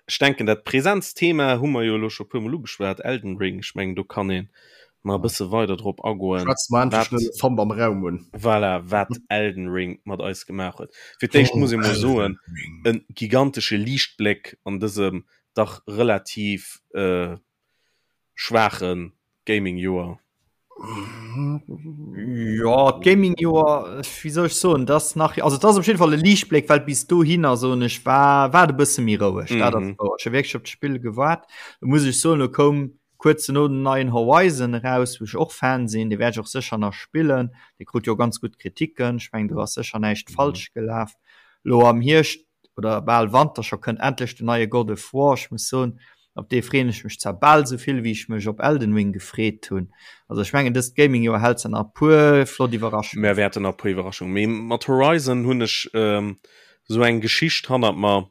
Ech denken dat Präsenzthema hu mer jo elo scho puermol ugeschwat, Elden Ring. Ech mengen do kann een nach e bësse weider drop agoen. Schwätz mer endlech den Elefant am Raum un. Voilà, wat Elden Ring mat eis gemaach huet. Fir d'éischt muss ee mol soen, e gigantesche Liichtbléck an dësem dach relativ schwaache Gaming-Joer. Jo, d'Gaming-Joer, wéi soll ech soen, dat ass nach, also et ass op jidde Fall e Liichtbléck, well bis dohinner, soen ech, war war et e bësse méi roueg. Dat ass wouer. Ech hu wierklech op d'Spill gewaart. Do muss ech soen, do koum kuerz dono den neien Horizon eraus, wou ech och Fan sinn. Dee wäert ech och sécher nach spillen. Dee krut jo ganz gutt Kriticken. Ech mengen, do ass sécher näischt falsch gelaf. Elo am Hierscht oder bal Wanter scho kënnt endlech den neie God of War. Ech muss soen, op dee freeën ech mech zwar bal esou vill wéi ech mech op Elden Ring gefreet hunn. Also ech mengen dëst Gaming-Joer hält se nach e puer flott Iwwerraschungen. Mär wäerten nach e puer Iwwerraschungen, mee mat Horizon hunn ech esou eng Geschicht hannert mer.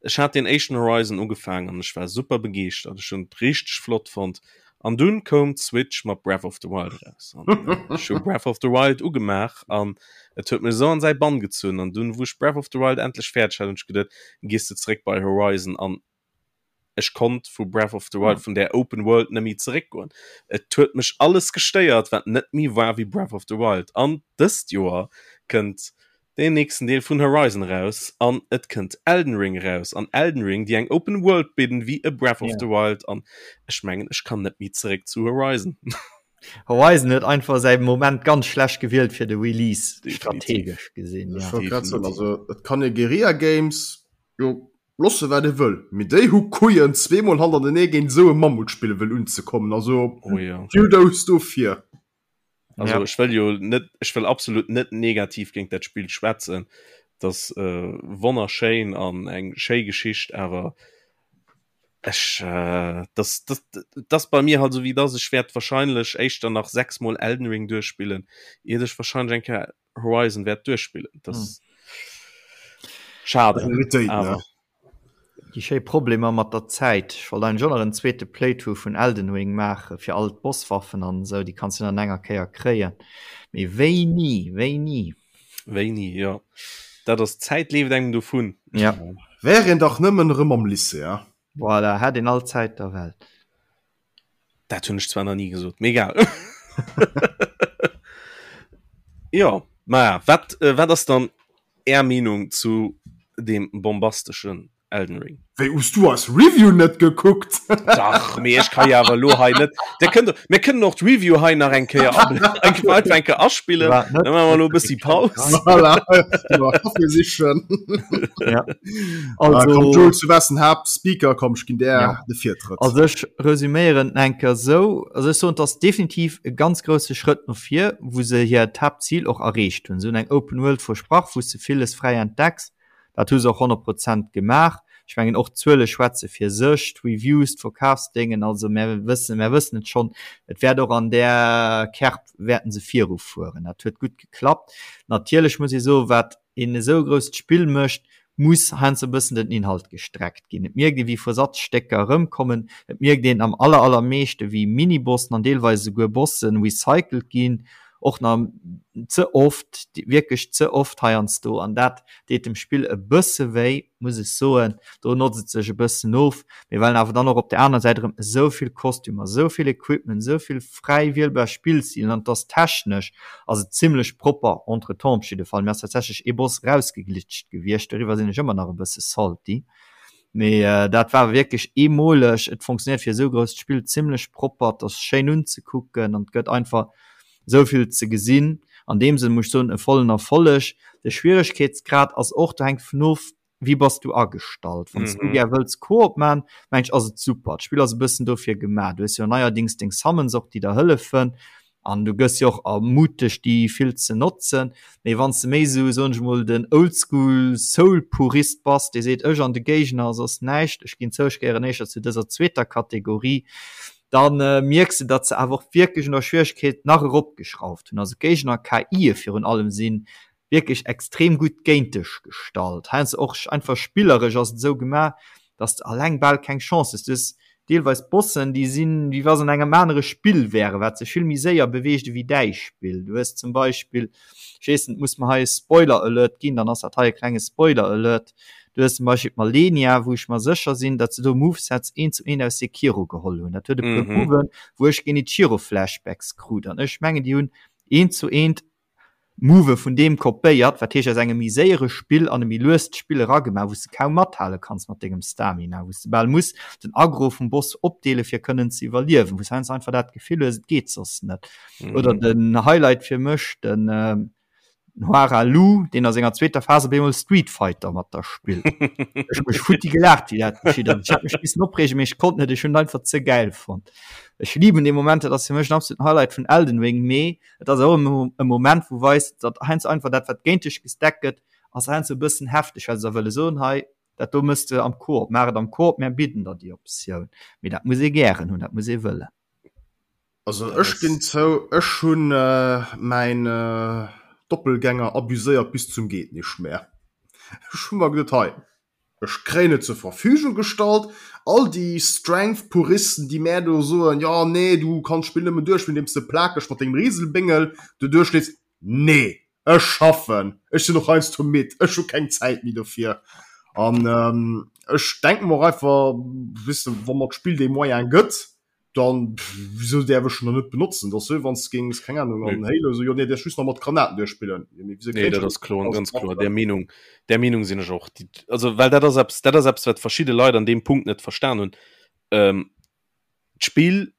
Ech hat deen éischten Horizon ugefaangen an ech war super begeeschtert. Ech hunn et richteg flott fonnt. An dunn koum d'Switch mat Breath of the Wild eraus. An ech hu Breath of the Wild ugemaach an et huet mech esou an säi Bann gezunn. An dunn, wou ech Breath of the Wild endlech fäerdeg hat, hunn ech geduet, gees de zeréck bei Horizon. An ech konnt vu Breath of the Wild, vun där Open World net méi zeréckgoen. Et huet mech alles gestéiert, wat net méi war wéi Breath of the Wild. An dëst Joer kënnt deen nächsten Deel vun Horizon eraus an et kënnt Elden Ring eraus an Elden Ring déi eng Open World bidden wéi e Breath of the Wild an ech mengen ech kann net méi zeréck zu Horizon. Horizon huet einfach säi Moment ganz schlecht gewielt fir de Release, strategesch gesinn. Ech wollt grad soen, also et kann ee Guerilla Games jo loosse wat ee wëll, mee déi hu Couillen zweemol hannertenee géint esou e Mammutspill wëll unzekommen, also Kudos dofir. Also ja. ech wëll jo net ech wëll absolut net negativ géint dat Spiel schwätzen. Das äh, wonnerschéin an eng schéi Geschicht, awer ech äh, das, das, das bei mir halt so wie das ech werd wahrscheinlech éischter nach sechsmol Elden Ring duerchspillen, iert ech wahrscheinlech eng Kéier Horizon werd duerchspillen. Das hm. schade. Awer. Déi schéi Problemer mat der Zäit. Ech wollt eigentlech och nach en zweete Playthrough vun Elden Ring maachen, fir all d'Bosswaffen an esou, déi kanns du dann an enger Kéier kréien. Mee wéini? Wéini? Wéini, jo. Dat ass, d'Zäit leeft engem dovun. Ja. Wär een dach nëmmen erëm am Lycée, hein? Voilà, hätt een all d'Zäit der Welt. Dat hunn ech zwar nach ni gesot, mee egal. Jo, maja, wat, äh, wat ass dann Är Meenung zu deem bombasteschen Elden Ring? Wéi, hues du eis Review net gekuckt? Dach, mee ech ka jo awer elo hei net. Dir kënnt, mir kënnen och d'Review hei nach eng Kéier ab, eng einfach eng Kéier aspillen. War net Dann maache mer elo e bëssi Paus. Voilà, Kaffi sichen. Ja. Also, ah, komm, Jules, du wars den Haaptspeaker, komm, ech ginn där ja. de Virtrëtt. Also ech resüméieren eng Kéier sou, also ech soen, et ass definitiv e ganz grousse Schrëtt no vir, wou se hiert Haaptzil och erreecht hunn. Se hunn eng Open World versprach, wou s de villes fräi entdecks. Dat hu se och 100 Prozent gemaach. Ech mengen och d'Zuele schwätze fir sech, d'Reviews, d'Verkafsdéngen, also mär wëssen, mär wëssen et schonn, et wäert och an där Kerb wäerten se virufueren. Dat huet gutt geklappt. Natierlech muss ee soen, wat een esou grousst Spill mécht, muss heiansdo e bëssen den Inhalt gestreckt ginn. Et mierkt ee wéi Versatzstécker erëmkommen, et mierkt een am aller allermeeschte wéi Minibossen an deelweis esouguer Bossen recycelt ginn, och nach ze oft, wierklech ze oft heiansdo, an dat deet dem Spill e bësse wéi, muss ech soen. Do notzt et sech e bëssen of, mee well awer dann och op der aner Säit erëm esou vill Kostümer, esou vill Equipment, esou vill fräi wielbar Spillstilen an et ass technesch ass et zimlech propper, entretemps op jidde Fall. Mir ass tatsächlech ee Boss rausgeglitscht gewiescht, doriwwer sinn ech ëmmer nach e bësse salty, mee dat war wierklech eemoleg. Et funktionéiert fir esou grousst Spill zimlech propper, et ass schéin unzekucken an et gëtt einfach esou vill ze gesinn. An deem Sënn muss ech soen, e vollen Erfolleg. De Schwieregkeetsgrad ass och, do hänkt vun of, wéi bass du agestallt. Wann s du gär wëlls Koop man, meng ech ass et super. D'Spill ass e bëssen dofir gemaach. Du hues jo neierdings deng Summons och, déi der hëllefen an du gëss jo och ermutegt déi vill ze notzen. Mee wann s de méi esou, soen ech mol, den Oldschool Soul Purist bass, dee seet ech an de Géigner a soss näischt, ech ginn zou, ech gehéieren éischter zu dëser zweeter Kategorie, dann mierks de, datt se awer och wierklech un der Schwieregkeet nach eropgeschrauft hunn. Also d'Géigner, KIe virun allem, si wierklech extrem gutt géint dech gestallt. Heiansdo och einfach spilleresch ass et esou gemaach, datt s de alleng bal keng Chance hues. Du hues deelweis Bossen, déi sinn, wéi wa se an engem anere Spill wären, wat sech vill méi séier beweegt ewéi däi Spill. Du hues zum Beispill, ech weess net, muss mer hei e Spoiler-Alert ginn, dann ass dat hei e klenge Spoiler-Alert, Du hues zum Beispill d'Malenia, wou ech mer sécher sinn, datt se do Movesets eent zu eent aus Sekiro geholl hunn. Dat huet e puer Moven, wou ech Genichiro-Flashbacks krut. An ech mengen, déi hunn eent zu eent Move vun deem kopéiert, wat heescht aus engem méi séiere Spill an e méi luest Spill eragemaach, wou s de kaum mathale kanns mat dengem Stamina, wou s de bal muss den Aggro vum Boss opdeele fir kënnen ze iwwerliewen, wou s heiansdo einfach dat Gefill hues, et geet soss net. Oder den Highlight fir mech, den Hoarah Loux, deen a senger zweeter Phas op eemol Street Fighter mat der spillt. Ech hu mech futti gelaacht, wéi dat geschitt ass. Ech hat mech missen opreegen, mee ech konnt net, ech hunn et einfach ze gäil fonnt. Ech liben dee Moment, dat ass fir mech en absoluten Highlight vun Elden Ring, mee et ass och e Moment, wou weist, datt heiansdo einfach dat, wat géint dech gestackt gëtt, ass heiansdo e bëssen hefteg, well se da wëlle soen, hei, dat do mëss de am Koop, maach et am Koop, mär bidden der déi Optioun. Mee dat muss ee gären hunn, dat muss ee wëllen. Also ech ginn zou, ech hunn mäin Doppelgänger abuséiert bis zum Geet-nicht-mehr. Ech hu mer geduet, hei, ech kréien et zur Verfügung gestallt. All déi Strength-Puristen, déi mär do soen, jo nee, du kanns d'Spill nëmmen duerchspillen, andeems de plakeg mat dengem Rieselbéngel do duerchleefs. Nee, ech schaffen, ech sinn och heiansdo midd, ech hu keng Zäit méi dofir. An ech denke mer och einfach, weess de, wa mer d'Spill dee Moyen gëtt, dann wieso däerf ech en dann net benotzen? Dat ass wéi wann s de géings, keng Ahnung, an Halo esou, jo nee, däerfs just nach mat Granaten duerchspillen. Jo, mee wieso Nee, kéint dat ech ass kloer, ganz kloer. Där Meenung, där Meenung sinn ech och. Déi, also well dat ass eppes, dat ass eppes, wat verschidde Leit an deem Punkt net verstan hunn. Ähm, d'Spill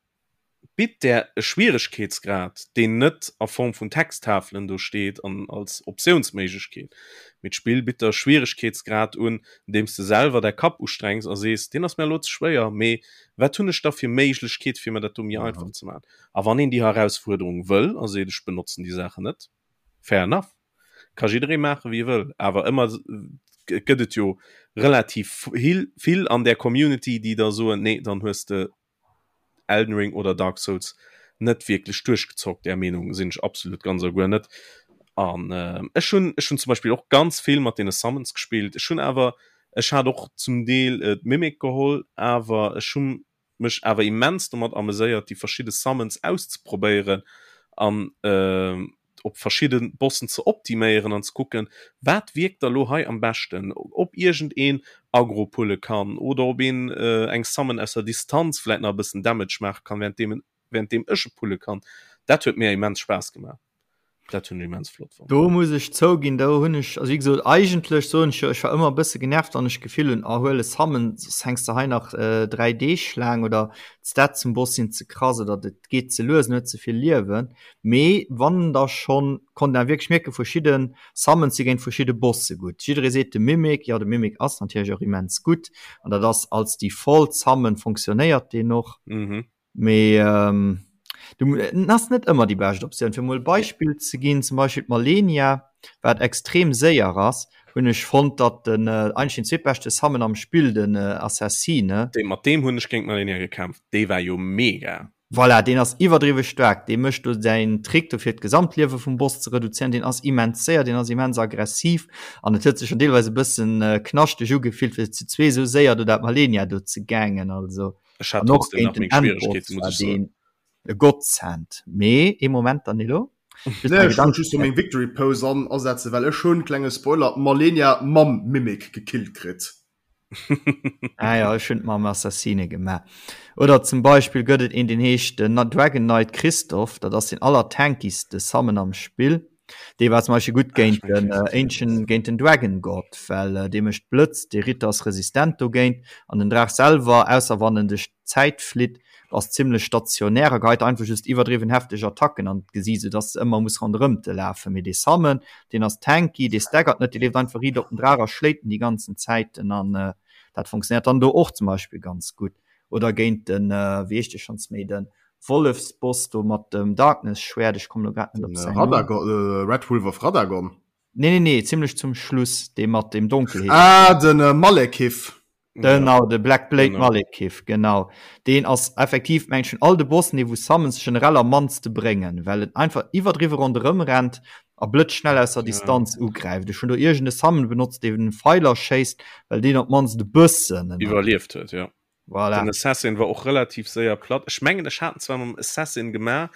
bitt där e Schwieregkeetsgrad, deen net a Form vun Texttafelen do steet an als Optiounsméiglechkeet, mee d'Spill bitt der e Schwieregkeetsgrad un, andeem s de selwer däi Kapp ustrengs a sees, deen ass mir elo ze schwéier, mee wat hunn ech da fir Méiglechkeet, fir mir dat do méi einfach ze maachen? A wann een déi Herausfuerderung wëll a seet, ech benotzen déi Saachen net, fair enough, ka jidderee maache wéi e wëll, awer ëmmer gëtt et jo relativ vill an där Community, déi da soen, nee, dann hues de Elden Ring oder Dark Souls net wierklech duerchgezockt. Där Meenung sinn ech absolut ganz a guer net. An äh, ech hunn ech hunn zum Beispill och ganz vill mat deene Summons gespillt. Ech hunn awer ech hat och zum Deel äh, d'Mimic geholl, awer ech hunn mech awer immens domat ameséiert, déi verschidde Summons auszeprobéieren an äh, op verschidde Bossen ze optiméieren an ze kucken, wat wierkt da lo hei am beschten, ob iergend een Aggro pulle kann oder ob een eng Summon aus der Distanz vläit nach e bëssen Damage maache kann, währenddeem währenddeem ech e pulle kann. Dat huet mir immens Spaass gemaach. Dat hunn ech immens flott fonnt. Do muss ech zouginn, do hunn ech, also wéi gesot, eigentlech soen ech jo, ech war ëmmer e bësse genervt, wann ech d'Gefill hunn, oh huel e Summon, soss hänks de hei nach 3 Deeg laang oder d'Stats zum Boss sinn ze krass oder et geet ze lues, en huet ze vill Liewen. Mee wann da schonn, konnt een wierklech mierken, verschidde Summons si géint verschidde Bosse gutt. Jidderee seet de Mimic, jo de Mimic ass natierlech och immens gutt an dat ass als Default Summon fonctionnéiert deen och. Mee du en ass net ëmmer déi bescht Optioun. Fir mol e Beispill ze ginn, zum Beispill d'Malenia, wat extrem séier ass, hunn ech fonnt, datt den eigentlech den zweetbeschte Summon am Spill, den Assassine, Dee mat deem hunn ech géint d'Malenia gekämpft, dee war jo mega. Voilà, deen ass iwwerdriwwe staark, dee mécht do säin Trick do fir d'Gesamtliewe vum Boss ze reduzéieren, deen ass immens séier, deen ass immens aggressiv an et huet sech schon deelweis e bëssen knaschteg ugefillt fir zu zwee sou séier do dat Malenia do ze gangen, also Ech hat an och trotzdem géint nach den meng Endboss Schwieregkeeten, muss war ech soen. deen e Godsend. Mee ee Moment Danilo, just Nee, ech wollt just meng Victory Pose an asetzen, well ech hunn, klenge Spoiler, d'Malenia mam Mimic gekillt kritt. Ah ja, ech hunn et mam Assassine gemaach. Oder zum Beispill gëtt et een, deen heescht den Dragon Knight Christoph, dat ass den allertankigste Summon am Spill. Dee war zum Beispill gutt géint den Ancient, géint den Dragon God, well dee mécht Blëtz, dee Ritter ass resistent dogéint an den Draach selwer, ausser wann en duerch d'Zäit flitt, ass zimlech stationär a geheit einfach just iwwerdriwwen hefteg Attacken an d'Gesiit, sou dass de ëmmer muss ronderëm te lafen. Mee dee Summon, deen ass tanky, dee staggert net, dee leeft einfach riit op den Draach a schléit en déi ganzen Zäiten an dat funktionéiert dann do och zum Beispill ganz gutt. Oder géint den, wéi heescht dee schonns méi, de Wollefsboss do mat dem Darkness-Schwäert, ech kommen elo grad net op säin Numm. Radagon, Red Wolf of Radagon? Nee, nee, nee, zimlech zum Schluss, dee mat dem Donkelheet. Ah, den Malekith. Genau, de Black Blade genau. Malekith, genau. Deen ass effektiv, meng ech, vun all de Bossen, dee wou Summons generell am mannste bréngen, well en einfach iwwerdriwwe ronderëm rennt a blëtzschnell aus der Distanz ja. ugräift. Ech hunn do iergend e Summon benotzt, dee Pfeiler schéisst, well deen op d'mannst e bëssen iwwerlieft huet, ja. Voilà. Den Assassin war och relativ séier platt. Ech mengen, ech hat en zwar mam Assassin gemaach,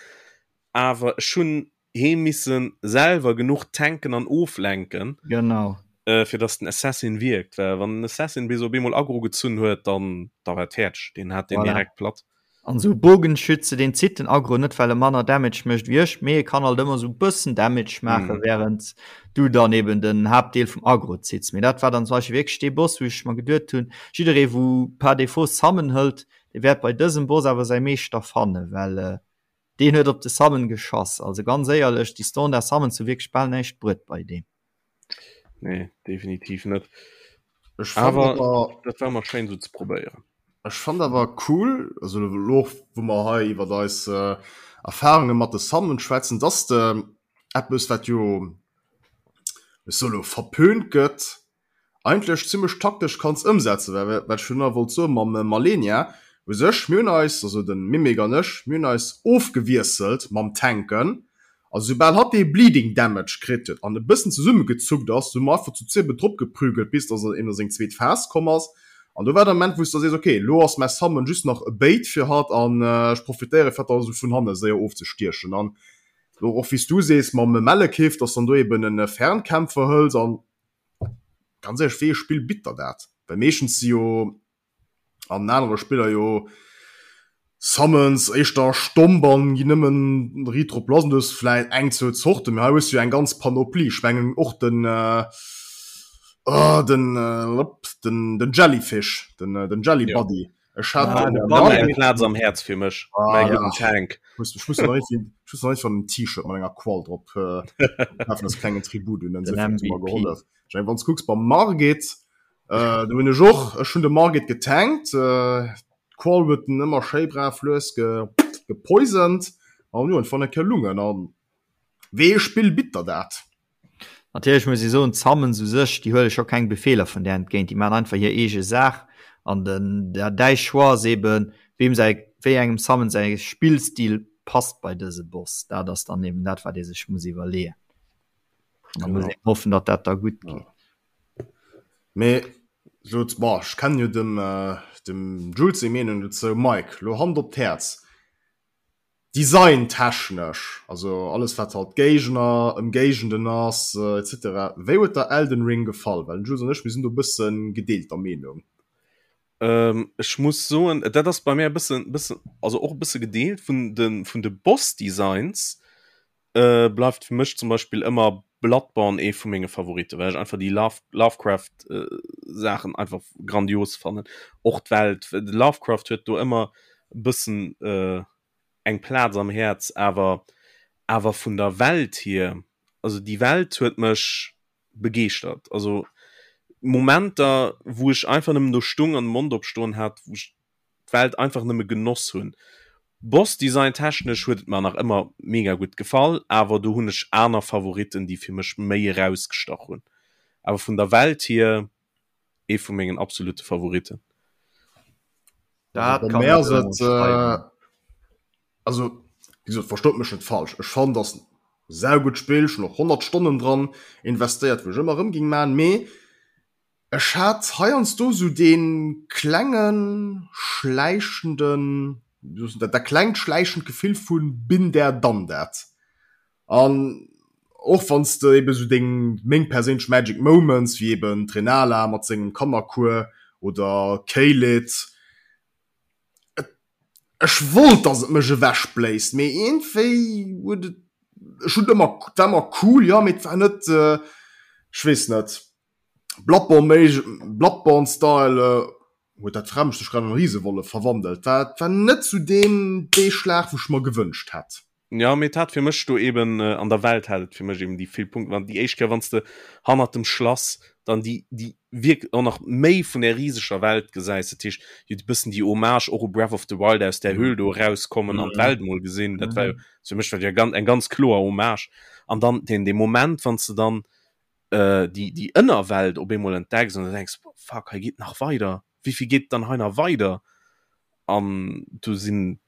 awer ech hunn hee missen selwer genuch tanken an oflenken, genau. äh, fir dass den Assassin wierkt. Well wann den Assassin bis op eemol Aggro gezunn huet, dann da war et fäerdeg. Deen hat den voilà. direkt platt. An sou Bogenschütze, deen zitt den Aggro net, well e manner Damage mécht wéi ech, mee e kann halt ëmmer sou bëssen Damage maachen, mm. während du dann eben den Haaptdeel vum Aggro zitts. Mee dat war dann zum Beispiel wierklech dee Boss, wou ech mer geduet hunn, jidderee wou par défaut Summon hëlt, dee wäert bei dësem Boss awer säi Meeschter fannen, well äh, Deen huet op de Summon geschoss. Also ganz éierlech, déi Standard Summons hu wierklech bal näischt bruet bei deem. Nee, definitiv net. Ech fand Awer awer, dat war mol schéin sou ze probéieren. ech fand awer cool, also elo och wou mer hei iwwert eis Erfahrunge mat de Summons schwätzen, dass de eppes wat jo, ech soe lo verpönt gëtt, eigentlech zimmlech taktesch kanns ëmsetzen, well wat ech virun wollt soen mam Malenia, u sech mir hunn eis, also de Mimic an ech, mir hunn eis ofgewiesselt mam Tanken, also soubal hatt dee Bleeding Damage kritt huet an e bëssen zesummegezuckt ass, hu mer einfach zu zwiebel drop geprügelt bis dass en a seng zweet Phas komm ass. An do war der Moment, wou s de sees, okay, lo ass mäi Summon just nach e Bait fir hatt an ech profitéiere fir hatt da sou vun hanne séier ofzestiechen. An lo och wéi s du sees mam Malekith, dass dann do eben e Fernkämpfer hëls an ganz éierlech, wéi ee Spill bitt der dat? Well meeschtens si jo an anere Spiller jo Summons éischter stomp an ginn nëmmen riit drop lass. An du hues vläit eng, zwou Zorten, mee hei hues du jo eng ganz Panoplie. Ech mengen och den oh den den den Jellyfish, den den Jelly Buddy. Ech hat ah, den Buddy eng Plaz am Häerz fir mech, ah, mäi gudden Tank. Ech muss nach ech muss nach en T-Shirt mat enger Qual drop kafen als klengen Tribut un den gehollef. Ech mengen wann s kucks beim Margit, äh, do hunn ech och, ech hunn de Margit getankt, äh, d'Qual huet en ëmmer schéi brav lues ge, gepoisoned an jo, en fand eng Kéier Lungen an wéi ee Spill bitt der dat? Natierlech muss ee soen, d'Summons u sech, déi huele scho keng Befeeler vun där entgéint, déi maachen einfach hir eege Saach an den, däi Choix ass eben, weem säi, wéi engem Summon säi Spillstil passt bei dëse Boss. Dat ass dann eben dat, wat ee sech muss iwwerleeën. Da muss een hoffen, datt dat da gutt geet. Mee lo, bon, ech kennen jo dem, dem Jules seng Meenung dozou. Mike, lo Hand op d'Häerz, designtechnesch, also alles wat halt Géigner, Ëmgéigenden ass, etc. Wéi huet der Elden Ring gefall? Well den Jules an ech, mir sinn do e bësse gedeelter Meenung. Ech muss soen, dat ass bei mär e bëssen, bëssen, also och e bësse gedeelt. Vun de, vun de Boss-Designs bleift fir mech zum Beispill ëmmer Bloodborne ee vu menge Favoriten, well ech einfach déi Love Lovecraft Saachen einfach grandios fannen. Och d'Welt, de Lovecraft huet do ëmmer e bëssen eng Plaz am Häerz, awer awer vun der Welt hier, also déi Welt huet mech begeeschtert. Also Momenter wou ech einfach nëmmen do stung an de Mond opstoen hat, wou ech d'Welt einfach nëmme genoss hunn. Boss Design technesch huet et mer nach ëmmer mega gutt gefall, awer do hunn ech aner Favoriten déi fir mech méi erausgestach hunn. Awer vun der Welt hier ee vu mengen absolute Favoriten. Dat kann ech ënnerschreiwen. Also wéi gesot, verstoot mech net falsch, ech fannen dass en saugutt Spill, ech hunn och 100 Stonnen dran investéiert, wou ech ëmmer erëm ging man, mee Ech hat heiansdo sou dee klengen schläichenden, dat klengt schläichend Gefill vu been there done that. An och wann s de eben sou deng, meng perséinlech Magic Moments, wéi eben d'Renala mat sengem Kannerkuer oder Caelid, et, ech wollt dass et mech ewech bléist, mee iergendwéi huet et, ech hunn et ëmmer, et war ëmmer cool, jo, mee et war net, ech weess net. Bloodborne Bloodborne Style huet dat Fremd sech grad an Riesewollef verwandelt. War war net sou deen dee Schlag wou ech mer gewënscht hätt. Ja mee et hat fir mech do eben an der Welt hat et fir mech eben déi vill Punkten an déi éischt Kéier wann s de hannert dem Schlass dann déi déi wierk och nach méi vun där riseger Welt gesäis, dat heescht jo e bëssen déi Hommage och u Breath of the Wild aus där Höhl do erauskommen an d'Welt mol gesinn, dat war jo fir mech war dat jo ganz eng ganz kloer Hommage an dann deen dee Moment wann s de dann déi déi Ënnerwelt op eemol entdecks an du denks fuck hei geet nach weider, wéivill geet dann hei nach weider an du sinn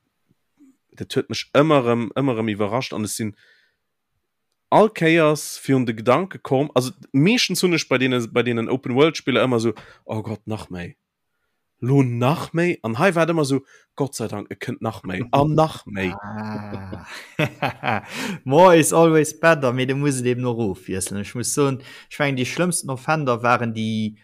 dat huet mech ëmmer erëm ëmmer erëm iwwerrascht an ech sinn all Kéiers virun de Gedanke komm, also meeschtens hunn ech bei deene bei deenen Open World Spiller ëmmer esou oh Gott nach méi. Lo nach méi? An hei war et ëmmer esou, Gott sei Dank, et kënnt nach méi an nach méi. Ah. More is always better, mee du muss et eben och ofwiesselen. Ech muss soen, ech mengen déi schlëmmsten Offender waren déi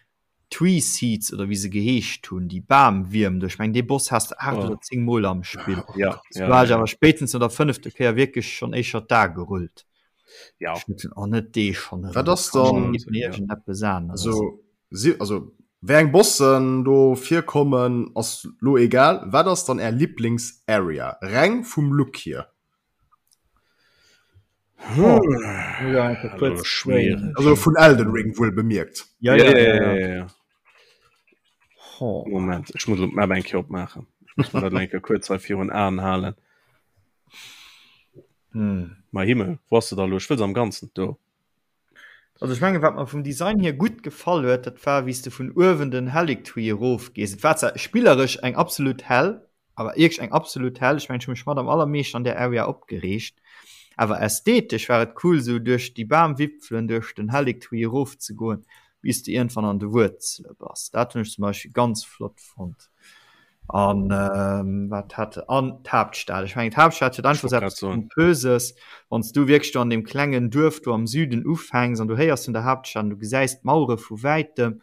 Tree Seeds oder wéi se geheescht hunn, déi Bamwierm do. Ech mengen dee Boss has de 8 oder 10 Mol am Spill. Ja, ja, war ech awer spéitstens no der fënnefter Kéier wierklech schonn éischer d'A gerullt. Ja. Ech muss soen, oh net dee schonn erëm. Wat ass dann, iergendeppes aneres. Also Si, also wéi eng Bossen do virkommen ass lo egal. Wat ass dann är Lieblings Area reng vum Look hier? Also vun Elden Ring wuel bemierkt. Ja, ja, ja, ja, ja, ja. Moment, ech muss d'Map eng Kéier opmaachen. Ech muss mer dat eng Kéier kuerz hei virun Aen halen. Hm. Mäi Himmel, wou ass se da lo? Ech wëll se am Ganzen do. Also ech mengen, wat mer vum Design hier gutt gefall huet, dat war wéi s de vun uewen den Haligtree erof gees. Et war zwar spilleresch eng absolut Hell, awer wierklech eng absolut Hell. Ech mengen, ech hu mech mat am allermeeschten an där Area opgereegt. Awer ästhetesch war et cool, esou duerch déi Bamwipfelen duerch den Haligtree erof ze goen. Bis de iergendwann an de Wuerzele bass. Dat hunn ech zum Beispill ganz flott fonnt. An wat hat an d'Haaptstad. Ech mengen d'Haaptstad huet einfach eppes Pompöses, wann s du wierklech do an deem klengen Duerf do am Süden ufänks an du héiers vun der Haaptstad an du gesäis d'Mauere vu wäitem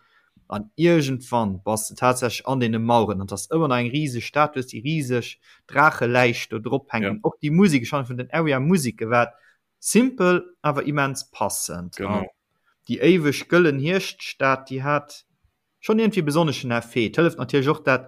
an iergendwann bass de tatsächlech an deene Maueren an et ass ëmmer nach eng riseg Stad, du hues déi riseg Draacheläich do drop hänken. Och déi Musek, ech fannen vun den Area Museke war Simpel, awer immens passend. Genau. An déi éiweg gëllen Hierschtstad, déi hat schonn iergendwéi e besonneschen Effet. Et hëlleft natierlech och, dat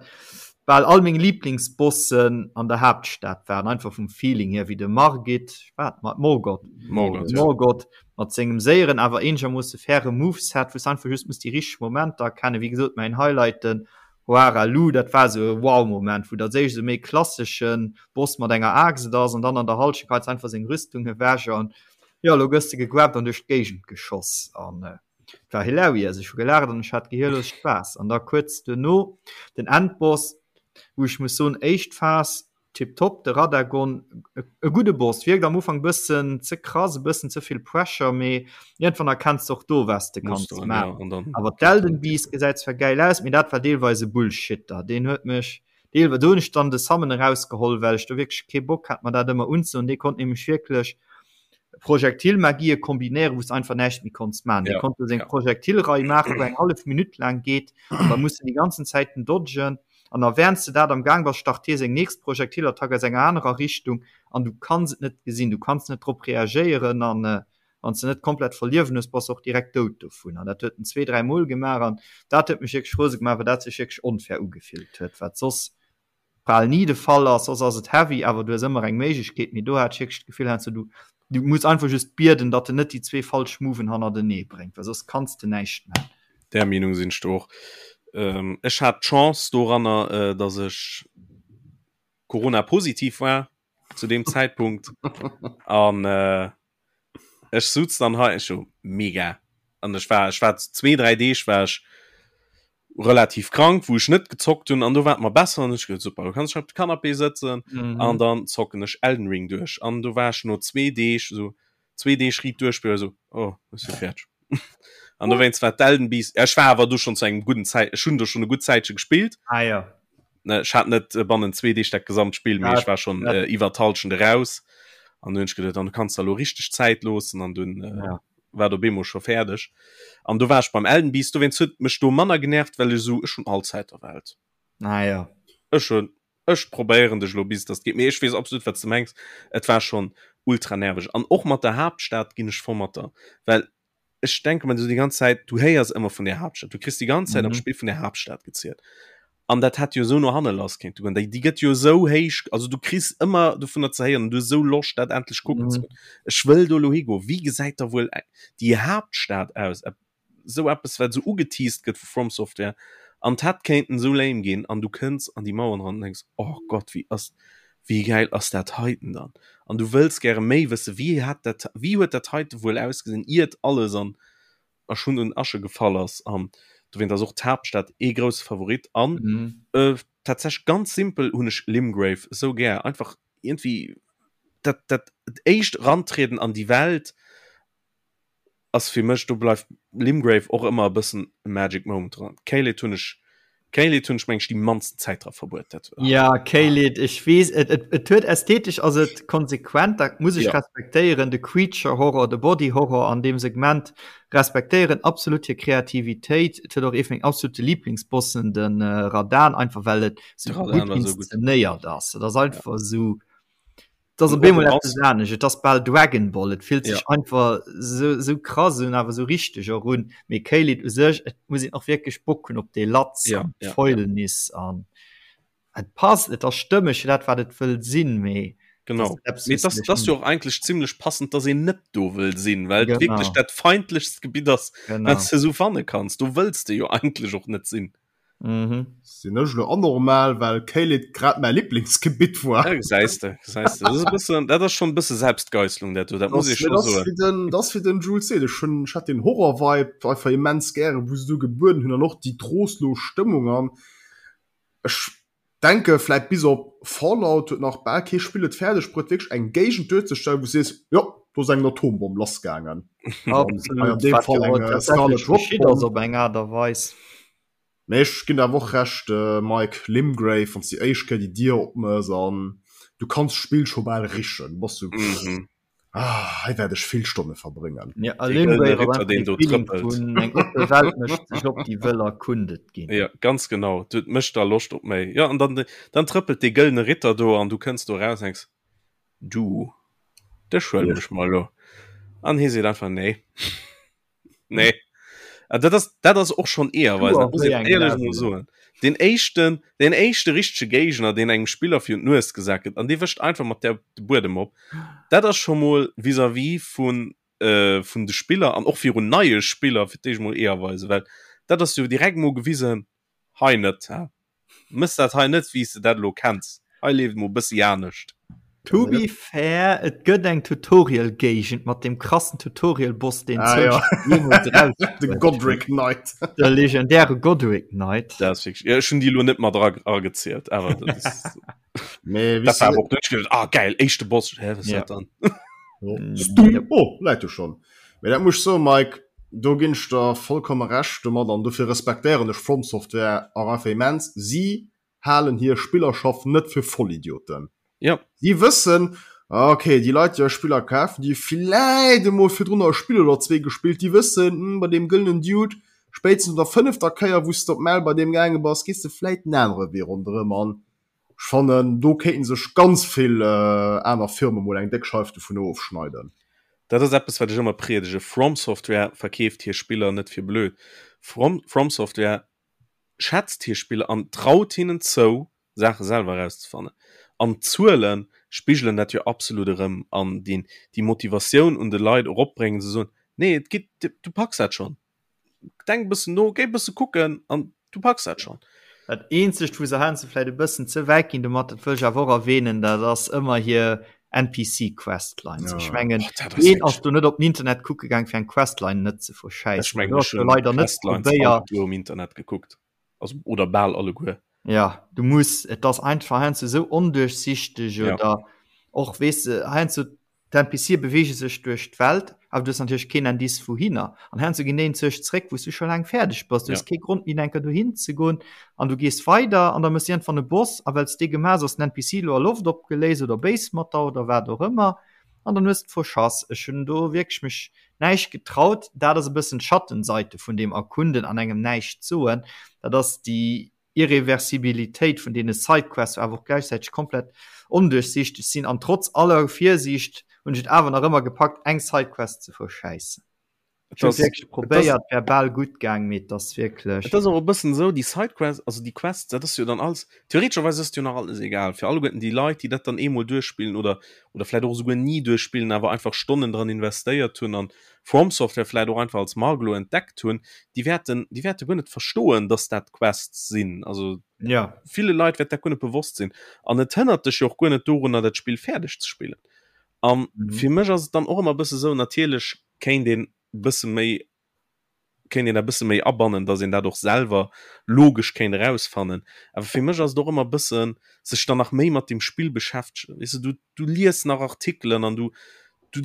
bal all meng Liblingsbossen an der Haaptstad waren, einfach vum Feeling hier, wéi de Margit, wat, Morgott, Morgott, ja. Morgott mat sengem séieren, awer eenegermoosse faire Moveset, wou s de einfach just muss déi richteg Momenter erkennen. Wéi gesot, mäin Highlight, den Hoara Lu, dat war sou e Wow-Moment, wou dat éischt esou méi klasseschen Boss mat enger Aaxt ass an dann an der Halschent geheit se einfach seng Rüstung ewech an jo, elo gëss de gegrabt an duerch d'Géigend geschoss an et war hilarious. Ech hu gelaacht an ech hat gehirlos Spaass. An da kuerz duerno den Endboss, wou ech muss soen, éischt Phas Tiptop, de Radagon, e gudde Boss, wierkt am Ufank bëssen ze krass, e bëssen ze vill Pressure, mee iergendwann erkenns de och do was de kanns maachen. Awer d'Elden Beast gesäit zwar gäil aus, mee dat war deelweis e Bullshitter, deen huet mech deelweis, do hunn ech dann de Summon erausgeholl, well ech do wierklech kee Bock hat mer dat ëmmer unzedoen, dee konnt nämlech wierklech Projektilmagie kombinéieren, wou s de einfach näischt méi konns maachen. Dee konnt do seng Projektilrei maachen, wou eng hallef Minutt laang geet, an da muss en déi ganzen Zäiten dodgen. An a während s de dat am Gaang bass, start hie seng nächst Projektilattack aus enger anerer Richtung an du kanns et net gesinn, du kanns net drop reagéieren an wann s de net komplett voll Liewen hues, bass de och direkt dout dovun. An dat huet en zwee, dräi Mol gemaach an dat huet mech wierklech rose gemaach, well dat sech wierklech onfair ugefillt huet, wat soss bal ni de Fall ass. Soss ass et heavy, awer du hues ëmmer eng Méiglechkeet, mee do hat ech wierklech d'Gefill heiansdo, du du muss einfach just bieden, datt en net déi zwee falsch Moven hannertenee bréngt, well soss kanns de näischt man. Där Meenung sinn ech do och. Ech hat d'Chance doranner, datt ech Corona-positiv war zu deem Zäitpunkt an ech suz dann hei, ech so mega an ech war ech war zwee dräi Deeg war ech relativ krank, wou ech net gezockt hunn an do war et mer besser an ech gesot super, du kanns dech op de Canapé sëtzen mhm. an dann zocken ech Elden Ring duerch an do war ech no zwee Deeg so zwee Deeg riit duerchspillen so oh ech si fäerdeg. An dowéinst war d'Elden Beast, ech war awer du schon zu engem gudden Zäit, ech hunn do schon e gutt Zäitche gespillt. Ah ja. Ne, ech hat net äh, bannen zwee Deeg dat gesamt Spill, mee ech war schon äh, iwwer d'Halschent eraus. An du hunn ech geduet, dann kanns du elo richteg Zäit loossen an dunn äh, ja. war do bemol scho fäerdeg. An do war ech beim Elden Beast, dowéinst huet mech do manner genervt, well ech esou, ech hunn all Zäit der Welt. Ah ja. Ech hunn Ech probéieren dech elo bis dass et geet, mee ech weess absolut wat s de mengs. Et war schonn ultra nerveg an och mat der Haaptstad ginn ech voll mat der, well ech denke mer esou déi ganz Zäit, du héiers ëmmer vun där Haaptstad, du kriss déi ganz Zäit am mhm. Spill vun der Haaptstad gezielt. An dat hätt jo esou no hanne lass kéinte goen. Déi, déi gëtt jo esou héich, also du kriss ëmmer dovunner ze héieren, du hues esou Loscht dat endlech kucken mhm. ze goen. Ech wëll do elo higoen. Wéi gesäit da wuel déi Haaptstad aus? Sou eppes wat sou ugeteased gëtt vu From Software an d'hätt kéinten sou lame ginn an du kënns an déi Mauern ran an denks oh Gott wéi ass wéi gäil ass dat heiten dann an du wëlls gäre méi wësse wéi hat dat wéi huet dat heite wuel ausgesinn iert alles an a Schund und Asche gefall ass an dowéint ass och d'Haaptstad ee grousse Favorit an mhm. äh, tatsächlech ganz simpel hunn ech Limgrave sou gär einfach irgendwie dat dat éischt rantrieden an déi Welt ass fir mech, do bleift Limgrave och ëmmer e bëssen e Magic Moment dran. Caelid hunn ech, Caelid hunn ech meng ech déi mannsten Zäit dra verbruet. Dat, ah. Ja, Caelid, ech weess, et, et, et huet ästhetesch ass et konsequent, dat muss ech ja. respektéieren, de Creature Horror, de Body Horror an deem Segment respektéieren absolut hir Kreativitéit. Et huet och ee vun meng absolute Lieblingsbossen, den äh, Radahn, einfach well et sou gutt inszenéiert ass. Et ass einfach ja. sou Et ass op eemol eppes anescht, et ass bal Dragon Ball, et fillt sech ja. einfach sou, sou krass un, awer sou richteg och un. Mee Caelid u sech, et muss een och wierklech Bock hunn op dee Latz ja, an ja, Fäulnis ja. an et passt, et ass stëmmeg fir dat wat et wëll sinn, mee Genau. Mee das, das jo och eigentlech zimmlech passend, dass een net do wëll sinn, well genau. wierklech dat feindlechst Gebitt ass, wat du sou fanne kanns. Do wëlls de jo eigentlech och net sinn. Mhm. Sinn ech lo anormal, well Caelid grad mäi Lieblingsgebitt war? Ja, gesäis de, gesäis de. Dat ass e bëssen, dat ass schonn e bësse Selbstgeisslung, dat do, dat muss ech scho soen. Den, dat ass wéi den Jules seet, ech hunn, ech hat den Horror-Vibe einfach immens gären, wou se do gebueden hunn an och déi trostlos Stëmmung an ech denke vläit bis op Fallout huet nach bal kee Spill et fäerdeg bruet wierklech eng Géigend duerzestellen, wou s sees, jo. Do ass eng Atombomm lassgaangen. Absolut. An deem Fall eng äh, Scarlet Rot Bomb. op eng Aart a Weis. Mee ech ginn der awer och Recht, äh, Mike, Limgrave, wann s déi éischt Kéier déi Dier opmëss an du kanns d'Spill scho bal richen, du bass sou, Mhm. ah, hei wäert ech vill Stonne verbréngen. Ja, a Dee gëllene Limgrave ass Ritter, einfach deen dee do Feeling trëppelt. vun eng oppe Welt mécht sech op, déi wëll erkundet ginn. Ja, ganz genau. Dat mécht da Loscht op méi. Ja, an dann, dann trëppelt dee gëllene Ritter do an du kënns do raus an denks, Du, dech huelen ech mer elo. An hie seet einfach, Nee. Nee. Ah, dat ass, dat ass och schonn Eeërweisen, dat muss een éierlech emol soen. Deen éischten, deen éischte richtege Géigner, deen engem Spiller virun d'Nues gesat gëtt, an dee wëscht einfach mat där de Buedem op, dat ass scho mol vis-à-vis vun, äh, vun de Spiller an och virun neie Spiller fir d'éischt mol Eeërweisen, well dat ass jo direkt mol gewisen, hei net, hä? Mëss dat hei net wéi s de dat elo kenns. Hei leeft mol bëssi anescht. To be fair, et gëtt eng Tutorial-Géigend mat deem krassen Tutorial-Boss, deen ah, ja. jeemools raus De Godric Knight. De legendäre Godric Knight. Dat ass wierklech, ja, ech hunn déi elo net mat era eragezielt, awer dat ass. Mee Dat war awer och duerch geduecht, ah geil, éischte Boss, hä, wat ass Ja. dat dann? Stung, oh, läit do schonn. Mee dat muss ech soen, Mike, do ginn ech der vollkomme Recht domat an dofir respektéieren ech From Software och einfach immens. Si halen hir Spillerschaft net fir Vollidioten. Ja. Si wëssen, ah, okay, déi Leit, déi eis Spiller kafen, déi hu villäit emol virdrunner e Spill oder zwee gespillt, déi wëssen, hm, bei deem gëllenen Dude, spéitstens no der fënnefter Kéier, wou s de op d'Maul bei deem gaange bass, gees de vläit en anere Wee ronderëm an Ech fannen do kéinten sech ganz vill aner Firmen mol eng déck Scheif dovun ofschneiden. Dat ass eppes wat ech ëmmer priedege, From Software verkeeft hir Spiller net fir blöd. From From Software schätzt hir Spiller an traut hinnen zou Saache selwer erauszefannen. An d'Zuele spigelen dat jo absolut erëm an déi déi Motivatioun un de Leit eropbréngen ze soen, nee et geet, du packs dat schonn. Denk e bëssen no, géi e bësse kucken an du packs dat schonn. Dat eenzegt wou se heiansdo vläit e bëssen ze wäit ginn domat, dat wëll ech awer och erwähnen, dat ass ëmmer hir NPC Questlines. Ech mengen, Oh, dat ass ween wierklech ass do net op den Internet kucke gaang fir eng Questline net ze Ech verschäissen? mengen Do ech ass jo hunn leider net d'Questlines probéiert. alleguer um Internet gekuckt, also oder bal alleguer. Ja, du muss, et ass einfach heiansdo esou onduerchsichteg Ja. oder och weess de heiansdo D'NPCe beweege sech duerch d'Welt, awer du hues natierlech keen Indice wouhinner. An heiansdo ginn déi enzwousch zréck, wou s du scho laang fäerdeg bass. Du hues Ja. kee Grond méi enker dohin ze goen an du gees weider an da méchs iergendwann e Boss a well s dee gemaach hues, ass den NPC elo a Loft opgeléist oder béis mat der oder wat och ëmmer an dann hues de verschass. Ech hunn do wierklech mech näischt getraut. Dat ass e bëssen d'Schattenseite vun deem Erkunden an engem näischt soen. Dat ass déi Irreversibilitéit vun deene Sidequests awer och gläichzäiteg komplett onduerchsiichteg sinn an trotz aller Virsiicht hunn ech et awer nach ëmmer gepackt eng Sidequest ze verschäissen. Ech hunn et wierklech probéiert, wär bal gutt gaang, mee et ass wierklech. Et ass och e bëssen esou, déi Sidequests, also déi Quests, dat ass jo dann alles, theoretescherweis ass et jo nach alles egal fir alleguerten déi Leit, déi dat dann eemol duerchspillen oder oder vläicht och esouguer ni duerchspillen, awer einfach Stonnen dran investéiert hunn an From Software vläit och einfach als Mark elo entdeckt hunn, déi wäerten, déi wäerte guer net verstoen, dass dat Quests sinn. Also ja. ville Leit wäert dat guer net bewosst sinn. An et hënnert dech jo och guer net dorunner, dat Spill fäerdeg ze spillen. An mhm. fir mech ass et dann och ëmmer bësse sou, natierlech kéint een bësse méi kéint een dat bësse méi abannen, dass een dat och selwer logesch kéint erausfannen. Awer fir mech ass et och ëmmer bëssen sech dann nach méi mat dem Spill beschäftegen. Weess de, du, du lies nach Artikelen an du, du,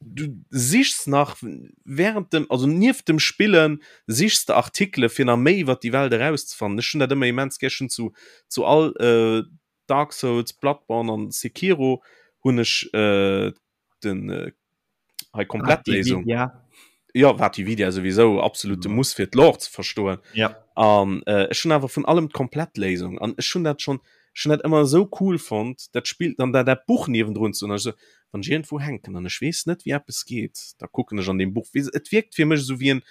du sichs nach während dem, also nieft dem Spillen sichs de Artikele fir nach méi iwwer déi Welt erauszefannen. Ech hunn dat ëmmer immens gär. Ech hunn zu, zu all äh, Dark Souls, Bloodborne an Sekiro hunn ech äh, den äh, hei Komplettléisung. Ja. Ja, VaatiVidya souwisou absolute Muss fir d'Lore ze verstoen. Ja. An äh, ech hunn awer vun allem d'Komplettléisung an ech hunn dat schon ech hunn dat ëmmer esou cool fonnt, dat Spill dann dat dat Buch niewendrun ze hunn. Also wann ech iergendwou hänken an ech weess net wéi eppes geet, da kucken ech an deem Buch. Weess et wierkt fir mech esou wéi en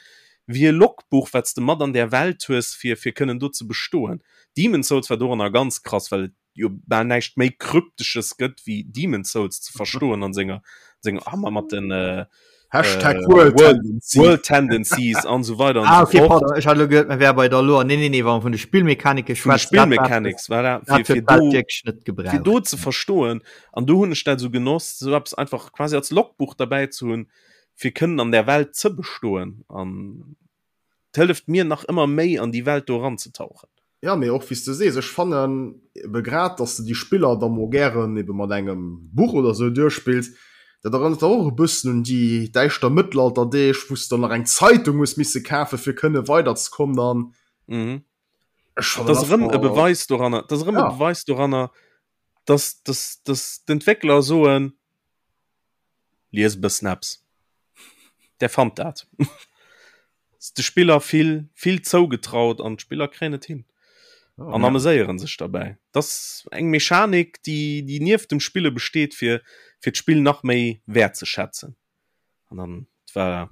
wéi e Logbuch wat s de mat an där Welt hues fir fir kënnen do ze bestoen. Demon's Souls war doranner ganz krass, well et jo bal näischt méi kryptesches gëtt wéi Demon's Souls ze verstoen an senger senger Hammer mat den äh, Hashtag äh, World World, Tendency. World Tendencies an so weiter an Ah, so okay, fort. pardon, ech hat elo geduet, mir wäre bei der Lore. Nee, nee, nee, wa mer vun de Spillmechanike Vun de schwätzen, dat war Spillmechanics war dat dat fir, fir huet d'Welt do wierklech net fir gebraucht. do ze verstoen an do hunn ech dat sou genoss sou eppes einfach quasi als Logbuch derbäi ze hunn fir kënnen an der Welt ze bestoen an 't hëlleft mir nach ëmmer méi an déi Welt do eranzetauchen. Ja, mee och wéi s de sees, ech fannen ebe grad, dass de déi Spiller da mol gären ebe mat engem Buch oder sou duerchspills. Dat erënnert der och e bëssen un déi däischter Mëttelalterdeeg, wou s de dann nach eng Zeitung hues misse kafe fir kënne weiderzekommen an mhm. Ech fannen Das erëm e Beweis doranner, das erëm e ja. Beweis doranner, dass, dass, dass d'Entwéckler soen, lies e bëssen eppes. Der fannt dat. De Spiller vill, vill zougetraut an d'Spiller kréien et hin. Oh, an ja. ameséieren sech derbäi. Das eng Mechanik, déi, déi nieft dem Spille besteet, fir, fir d'Spill nach méi wäertzeschätzen. An dann war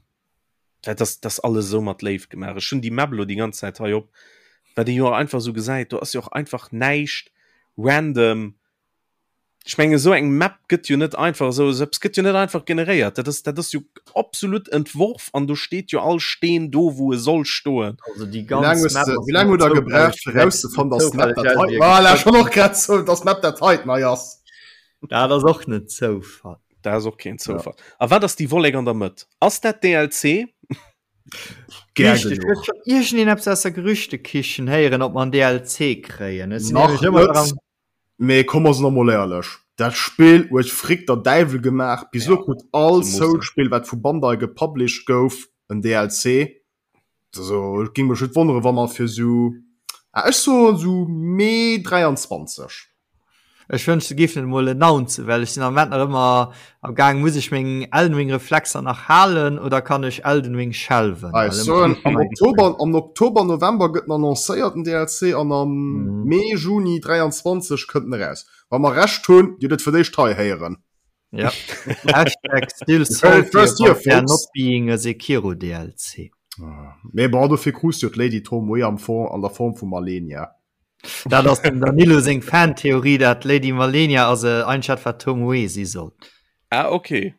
dat ass das alles esou mat Léift gemaach. Ech hunn déi Map elo déi ganz Zäit hei op, wat ee jo och einfach esou gesäit, do ass jo och einfach näischt random. Ech mengen esou eng Map gëtt jo net einfach esou, esou eppes gëtt jo net einfach generéiert. Dat ass, dat ass jo absolut entworf an do steet jo all Steen do wou e soll stoen. Also déi Wéi laang ganz hues Map de, ass wéi laang hutt der gebraucht fir rauszefannen, dass d'Map dat hei, voilà, ech wollt och grad soen, dass d'Map dat heiten hei ass. Dat ass och net Zoufall. Dat ass och keen Zoufall. Ja. A wat ass déi Wollek an der Mëtt? Ass dat DLC? Gär genuch. Iergendeen eppes aus der Gerüchtekichen héieren, ob mer en DLC kréien. Ech sinn nämlech ëmmer dran. Mee komm mer sinn emol éierlech, dat Spill huet Frick der Däiwel gemaach. Bis elo krut all Souls-Spill wat vu Bandai gepublished gouf en DLC. Also et géing mech net wonnere wa mer fir sou, ah ech soen sou Mee 23. Ech wënscht se géifen et emol announcen, well ech sinn am Moment nach ëmmer am gaang, muss ech meng Elden Ring Reflexer nach halen oder kann ech Elden Ring shelven? Ah, ech soen am Oktober, am Oktober, November gëtt en annoncéiert den DLC an am Mee, Juni 23 kënnt en eraus. Wa mer Recht hunn, Dir hutt et fir d'éischt hei héieren. Ja. Hashtag still salty first year, about there folks. not being a Sekiro DLC. Ah, Mee bon, dofir krus du jo d'Lady Tomoe am Form, an der Form vu Malenia. Dat ass dem Danilo seng Fantheorie, dat d'Lady Malenia ass e eigentlech dat wat Tomoe si soll. Ah, okay.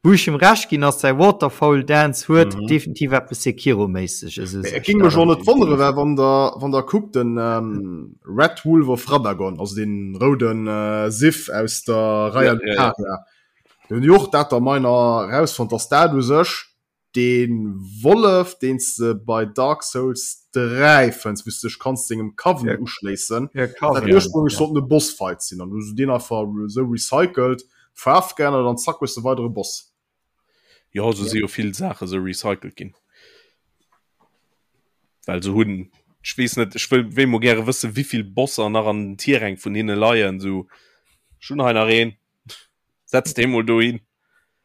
Wou ech him Recht ginn ass, säi Waterfowl Dance huet mhm. definitiv eppes Sekiro-méisseges. Et ging mech och net wonnere, well wann der, wann der kuckt den ähm, Red Wolf of Radagon, also den rouden äh, Sif aus der Raya ja, ja, ja. Den jo och dat der meiner rausfand, dass dat u sech den Wollef, den se bei Dark Souls 3 fënns, wou s du dech kanns dengem Coven ja. uschléissen. Ja, Coven, dat ursprünglich ja. sollt e Bossfight sinn an du den einfach sou recycelt, Faarf geännert an zack hues de weidere Boss. Jo, sou si jo vill Saache sou recycelt ginn. Well se hunn, ech weess net, ech wëll wéi mol gäre wësse wéivill Bosser nach an den Tierräng vun hinne leien, sou ech hunn hei nach een, setz dee mol dohin.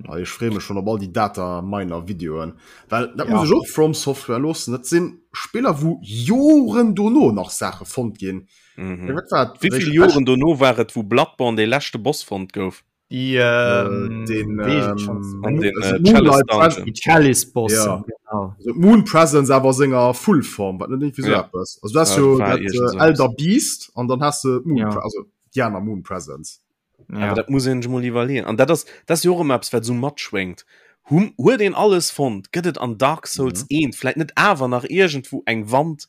Ah, ech freeë mech schonn op all déi Data Miner Videoen, well dat muss ech och From Software loossen, dat sinn Spiller wou Joren dono nach Saache fonnt ginn. Mhm. Wat war Wéi vill Joren dono war et wou Bloodborne dee leschte Boss fonnt gouf? Déi ähm, den, ähm, an den äh, Chalice Dungeon. Die Chalice Boss. Ja. Genau. Also Moon Presence awer senger Fullform, wat net irgendwie so ja. etwas. Also du hast ja, jo dat äh, Elder Beast an dann hast du Moon ja. also die aner Moon Presence. Ja. Aber dat muss een sech mol iwwerleeën. An dat ass dat ass jo och ëmmer eppes, wat esou matschwéngt. Hum, huet een alles fonnt? Gëtt et an Dark Souls Mhm. 1 vläit net awer nach iergendwou eng Wand,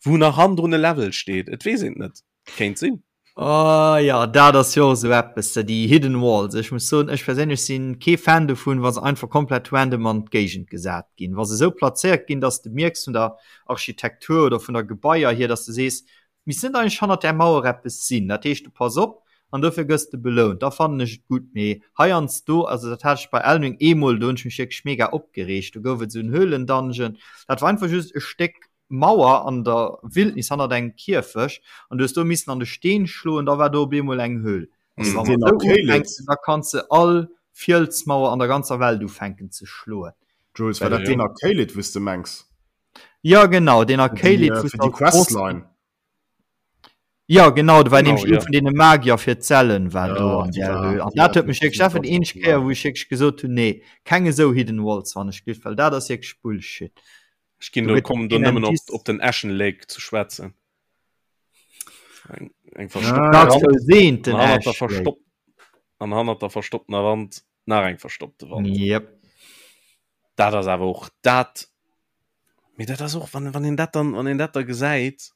wou nach hannendrun e Level steet? Et weess een et net. Kéint sinn. Oh ja, dat ass jo och esou eppes, déi Hidden Walls. Ech muss soen, ech perséinlech sinn kee Fan dovun, wa se einfach komplett random an d'Géigend gesat ginn. Wa se esou plazéiert ginn, dass de mierks vun der Architektur oder vun der Gebaier hier, dass de sees, Misst net eigentlech hannert där Mauer eppes sinn? Dat heescht, du pass op an dofir gëss de belount. Da fannen ech et gutt. Mee heiansdo, also dat hat ech bei Elden Ring eemol, do hunn ech mech wierklech mega opgereegt, do gouf et esou en Höhlendungeon, dat war einfach just e Stéck Mauer an der Wildnis hannert engem Kierfecht an du hues do missen an de Steen schloen, da war do op eemol eng Höhl. Ass Wa dat mer deen esou Arcade? ufänken, da kanns de all Fielsmauer an der ganzer Welt ufänken ze schloen. Jules, war dat deen Arcade, wou s de mengs? Ja genau, den Déi, Arcade äh, fir déi Questline. Ja genau, do war Genau, nämlich ja. ee vun deene Magier fir d'Zellen war Ja, do an déi der war- Höhl. An déi dat war huet mech wierklech, dat war déi eenzeg Kéier, wou ech wierklech gesot hunn, nee, keng esou Hidden Walls wann ech giff, well dat ass wierklech Bullshit. Ech ginn Do do gëtt kommen do keen nëmmen op, Indice. op den Ashen Lake ze schwätzen. Eng, eng Ah, verstoppte Dark Wand Souls 1, den an hannert der Ash Lake. verstopp an hannert der verstopptener Wand nach eng verstoppte Wand. Yep. Dat ass awer och dat, mee dat ass och, wann, wann een dat dann, wann een dat da gesäit,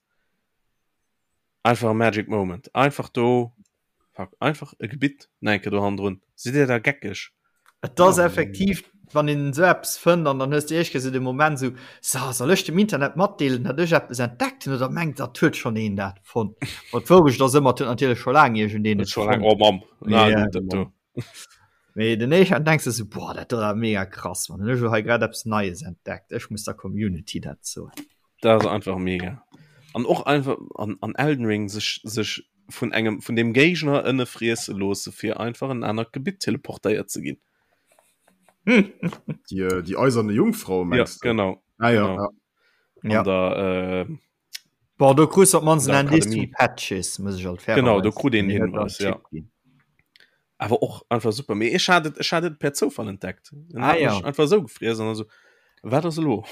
einfach e Magic Moment. Einfach do, fuck, einfach e Gebitt nach eng Kéier do hannendrun. Sidd Dir da geckeg? Et ass effektiv, wann een esou eppes fënnt an dann hues de éischt Kéier esou de Moment esou, So, soll ech dem Internet matdeelen, datt ech eppes entdeckt hunn oder mengt datt huet schonn een dat fonnt? Ma d'Wourecht ass ëmmer, et huet natierlech scho laang iergendeen Huet et scho laang, fonnt. oh Mamm, na Ja, gutt, dat do. Mee den éischten denkst du so, boah, dat war mega krass, man. Ech hu hei grad eppes Neies entdeckt. Ech muss der Community dat soen. Dat ass einfach mega. An och einfach an, an Elden Ring sech, sech vun engem vun dem Géigner ënne friesse loosse fir einfach en anert Gebitt teleportéiert ze ginn. Déi, äh, déi eiserne Jungfrau mengst ja, genau. Ah, ja, genau. Ja. Ja. Der, äh, Bon, do krus op mannst en Indice vun Patches, muss ech alt fairerweis. Genau, do krut een Hinweis, ja. Awer och einfach super. Mee ech hat et, ech hat et per Zoufall entdeckt. En ah, hat ja. mech einfach esou gefriess an also, wat ass elo?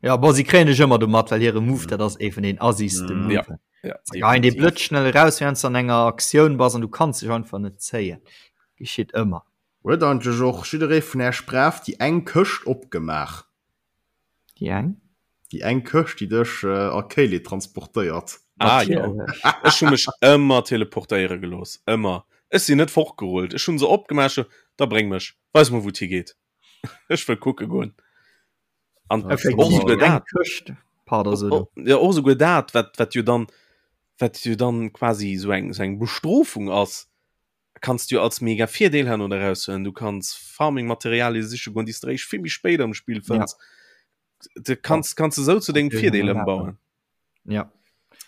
Ja, bon, si kréien dech ëmmer domat, well hire Move, dat ass ee vun den assigste Mm. Ja. Moven. Ja, Se geheien dee blëtzschnell eraus, während du an enger Aktioun bass an du kanns dech einfach net zéien. Geschitt ëmmer. Huet eigentlech och jidderee vun Äech brav déi eng Këscht opgemaach? Déi eng? Déi eng Këscht, déi dech a Caelid transportéiert. Ah jo, ech hu mech ëmmer teleportéiere gelooss, ëmmer. Ech sinn net fortgerullt, ech hu se opgemaach, da bréng mech, weis mer wou et higeet, ech wëll kucke goen. An och souguer dat, jo och souguer dat, wat wat jo dann, wat jo dann quasi esou eng esou eng Bestrofung ass, kanns du jo als mega Virdeel herno eraushuelen. Du kanns Farming-Materialie siche goen, déi s de eréischt vill méi spéit am Spill fënns. Ja. Du kanns, kanns du sou zu dengem Virdeel ëmbauen. Ja.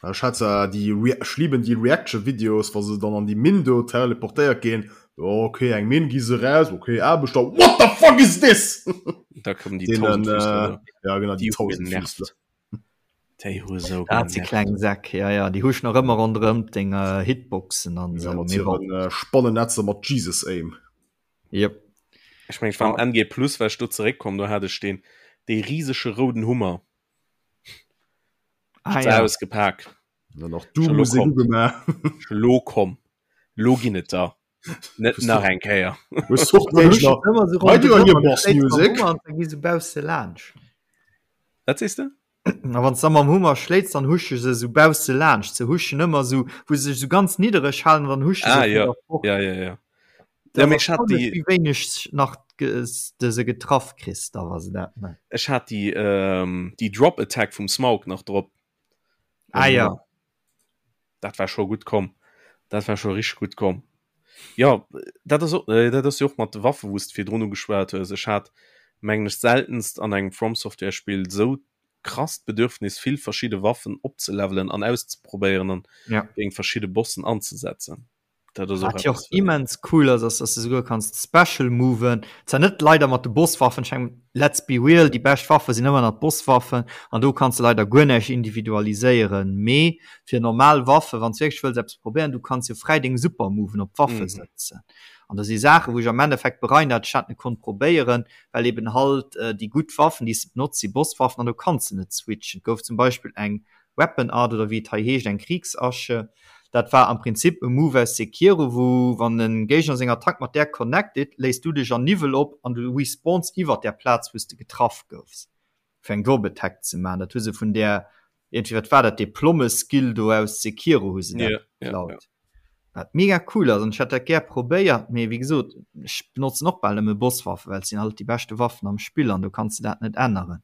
Ech hat zwar déi Re ech liben déi Reaction-Videos, wa se dann an déi Minn do teleportéiert ginn. Oh, okay, eng Minn, gi se raus, okay, Aarbechter, what the fuck is this? Da kommen déi Tausendfüßler. Äh, ja, genau, déi Tausendfüßler. Déi hu sou Dat si kleng Säck, ja, ja, déi huschen nach ëmmer ronderëm deng äh, Hitboxen an ja, mat hiren äh, Spannennetzer mat Jesus Aim. Yep. Ech meng, ech war am NG Plus, well ech do zeréckkomm, do hat ech deen dee riesege rouden Hummer. Ah, ja. Ausgepak. Dann och du Musek ugemaach. Lo komm. Lo ginn et der. Net nach eng Kéier. Wat sees de? A wann s de mam Hummer schléits, dann husche se sou bausse laanscht. Se huschen ëmmer sou, wou se sech sou ganz niddereg halen, an dann husche se ah, vun ja. der fort. Ja, ja, ja. Dat Ja, mee ass ech hat erstaunlech, déi wéi wéineg nach de se getraff kriss, da wa se dat man. Ech hat déi, ähm, déi Drop Attack vum Smaug nach drop. Ah, ja. Dat war scho gutt komm. Dat war scho richteg gutt komm. Jo, dat ass och, äh, dat ass jo och mat de Waffe wou s de virdrun ugeschwat hues. Ech hat, mengen ech, seltenst an engem From Software Spill esou krasst Bedürfnis vill verschidde Waffen opzelevelen an auszeprobéieren an Ja. géint verschidde Bossen anzesetzen. Dat ass och Wat jo och eppes, wat. immens cool ass, ass dass du souguer kanns Special moven, zwar net leider mat de Bosswaffen, ech mengen let's be real, déi bescht Waffe sinn ëmmer nach d'Bosswaffen an do kanns de leider guer näischt individualiséieren, mee fir normal Waffe wann s wierklech wëlls eppes probéieren, du kanns jo fräi deng Super Moven op d'Waffe Mhm. sëtzen an do si Saachen wou ech am Endeffekt bereien dat ech dat net konnt probéieren, well eben halt déi gutt Waffen déi s de benotz si Bosswaffen an do kanns de net switchen. Et gouf zum Beispill eng Weapon Art oder wéi et hei heescht, eng Kriegsasche. Dat war am Prinzip e Move aus Sekiro, wou wann e Géigner seng Attack mat där connected, léist du dech an Niwwel op an du respawns iwwert där Plaz wou s de getraff goufs, fir eng Drop Attack ze maachen. Dat hu se vun där, iergendwéi, wat war dat, dee Plomme-Skill do aus Sekiro hu se dat Ja, ja, ja. geklaut. Wat mega cool ass an ech hätt dat gär probéiert, mee wéi gesot, ech benotzen och bal nëmme Bosswaffen, well et sinn halt déi beschte Waffen am Spill an do kanns de dat net änneren.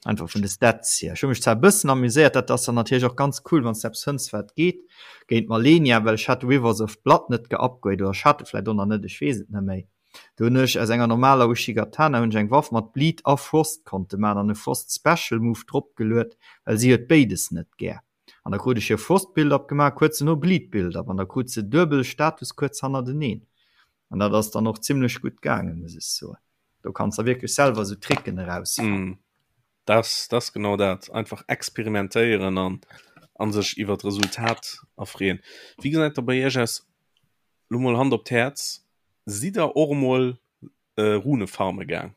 Einfach vun de Stats hier. Ech hu mech zwar e bëssen amuséiert, dat ass dann natierlech och ganz cool, wann s de eppes fënns, wat geet, géint d'Malenia, well ech hat de Rivers of Blood net geupgrade oder ech hat e vläicht och nach net, ech weess et net méi. Do hunn ech aus enger normaler Uchigatana hunn ech eng Waff mat Bleed a Frost konnte maachen an e Frost Special Move dropgeluet, well si huet béides net gär. An da krut ech hir Frost Build-up gemaach, kuerz dono Bleed Build-up an da krut se duebel Status kuerz hannerteneen. An dat ass dann och zimlech gutt gaangen, muss ech soen. Do kanns der wierklech selwer esou Tricken erausfannen. Mm. Das, das genau dat. Einfach experimentéieren an an sech iwwer d'Resultat erfreeën. Wéi gesäit da bei Iech aus, lo mol Hand op d'Häerz, sidd der och emol äh, Rune farme gaang?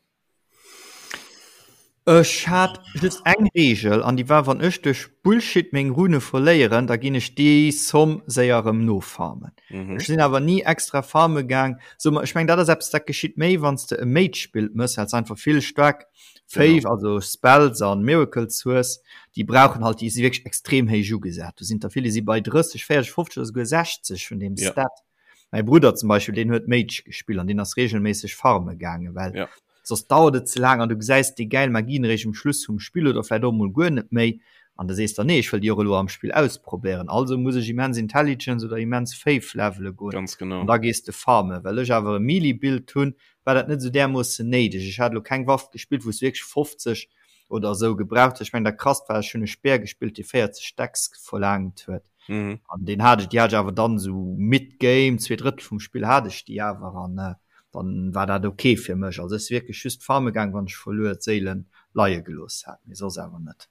Ech hat just eng Reegel an déi war, wann ech duerch Bullshit meng Rune verléieren, da ginn ech déi Somm séier erëm nofarmen. Mhm. Ech sinn awer ni extra farme gaang. So, ech meng dat ass eppes dat geschitt méi wann s de e Mage Build mëss, well s einfach vill staark Faith, Genau. also Spells an Miracles hues, déi brauchen halt, déi si wierklech extrem héich ugesat. Do sinn der vill, déi si bei 30, 40, 50 oder souguer 60 vun deem Ja. Stat. Mäi Brudder zum Beispill, deen huet Mage gespillt an deen ass regelméisseg farme gaangen, well Ja. soss dauert et ze laang an du gesäis déi gäil Magien eréischt um Schluss vum Spill oder vläicht och emol guer net méi. An da sees der, nee, ech wëll déi och elo am Spill ausprobéieren, also muss ech immens Intelligence oder immens Faith levele goen. Ganz genau. An da gees de farmen. Well ech awer e Melee-Build hunn, war dat net esou därmoossen néideg. Ech hat elo keng Waff gespillt, wou s wierklech 50 oder esou gebraucht hues. Ech mengen, dat krasst war, ech hunn e Speer gespillt, dee 40 Dex verlaangt huet. Mhm. An deen hat ech, déi hat ech awer dann esou mid-game, 2/3 vum Spill hat ech déi awer an dann war dat ok fir mech. Also ech si wierklech just farme gaang, wann ech verluer d'Séilen leie gelooss hat, mee soss awer net.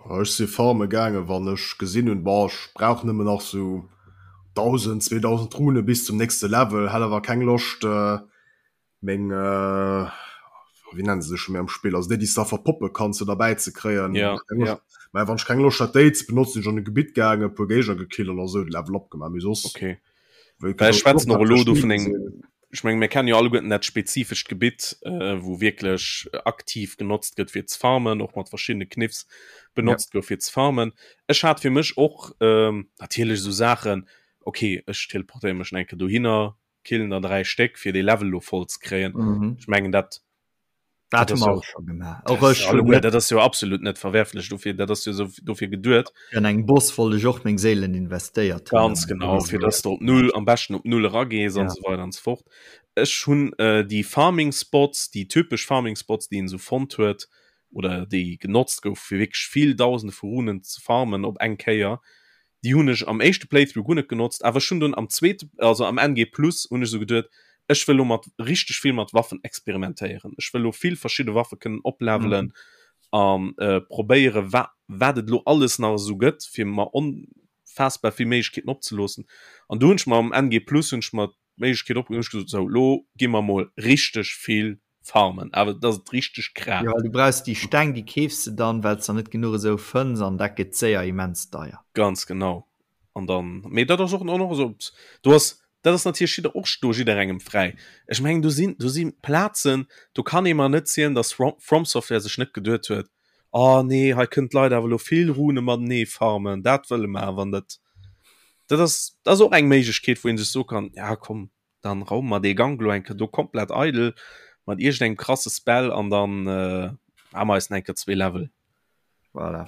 Ech si farme gaangen, wann ech gesinn hunn, boah, ech brauch nëmmen nach sou 1.000, 2.000 Rune bis zum nächste Level, hat awer keng Loscht meng, wéi nennen se sech scho méi am Spill, also déi, déi s de da verpoppe kanns, fir derbäi ze kréien. Ja, ja. Mä wann ech keng Loscht hat, déi ze benotzen, sinn ech an e Gebitt gaangen, e puer Géigner gekillt an da sou de Level up gemaach, mee soss. Okay. Well ech schwätzen och elo do vun engem, ech menge mir kennen jo alleguerten dat spezifescht Gebitt, wou wierklech aktiv genotzt gëtt fir ze farmen, och mat verschiddene Kniffs benotzt gouf fir ze farmen. Ech hat fir mech och natierlech esou Saachen, okay ech teleportéiere mech nach eng Kéier dohinner, killen der 3 Stéck fir dee Level elo voll ze kréien. Ech mengen dat Dat hu mer och scho gemaach. Och ech hunn net. Dat ass jo absolut net verwerflech dofir, dat ass jo sou dofir geduet. An engem Boss wollt ech och meng Séilen investéiert hunn. Ganz genau, fir dass de op null, am beschten op null eragees an esou weider an esou fort. Ech hunn déi Farming Spots, déi typesch Farming Spots, déi een esou fonnt huet oder déi genotzt gouf fir wierklech vill Dausende vu Runen ze farmen op eng Kéier, Déi hunn ech am éischte Playthrough guer net genotzt, awer ech hunn dunn am zweete, also am NG Plus hunn ech esou geduet, ech wëll lo mat richteg vill mat Waffen experimentéieren. Ech wëll lo vill verschidde Waffe kënnen oplevelen an probéiere wa wat et lo alles nach esou gëtt, fir mer onfaassbar vill Méiglechkeeten opzeloossen. An du hunn ech mer am NG Plus hunn ech mer d'Méiglechkeet opgemaach, hunn ech gesot, sou lo gi mer mol richteg vill farmen, awer dass et richteg kraacht. Jo, du brauchs déi Steng, déi keefs de dann, well s der net genuch esou fënns an dat gëtt séier immens deier. Ganz genau. An dann, mee dat ass och och esou, do ass, dat ass natierlech jidder och do jidderengem fräi. Ech mengen do sinn, do si Plazen, do kann ee mer net zielen, dass From Software sech net geduet huet, oh nee, hei kënnen d'Leit awer elo vill Rune matenee farmen, dat wëlle mer awer net. Dat ass, dat ass och eng Méiglechkeet, wou ee sech soe kann, ja komm, dann raume mer dee Gank lo eng Kéier do komplett eidel mat iergendengem krasse Spell an dann äh, hu mer eis nach eng Kéier zwee Level. Voilà.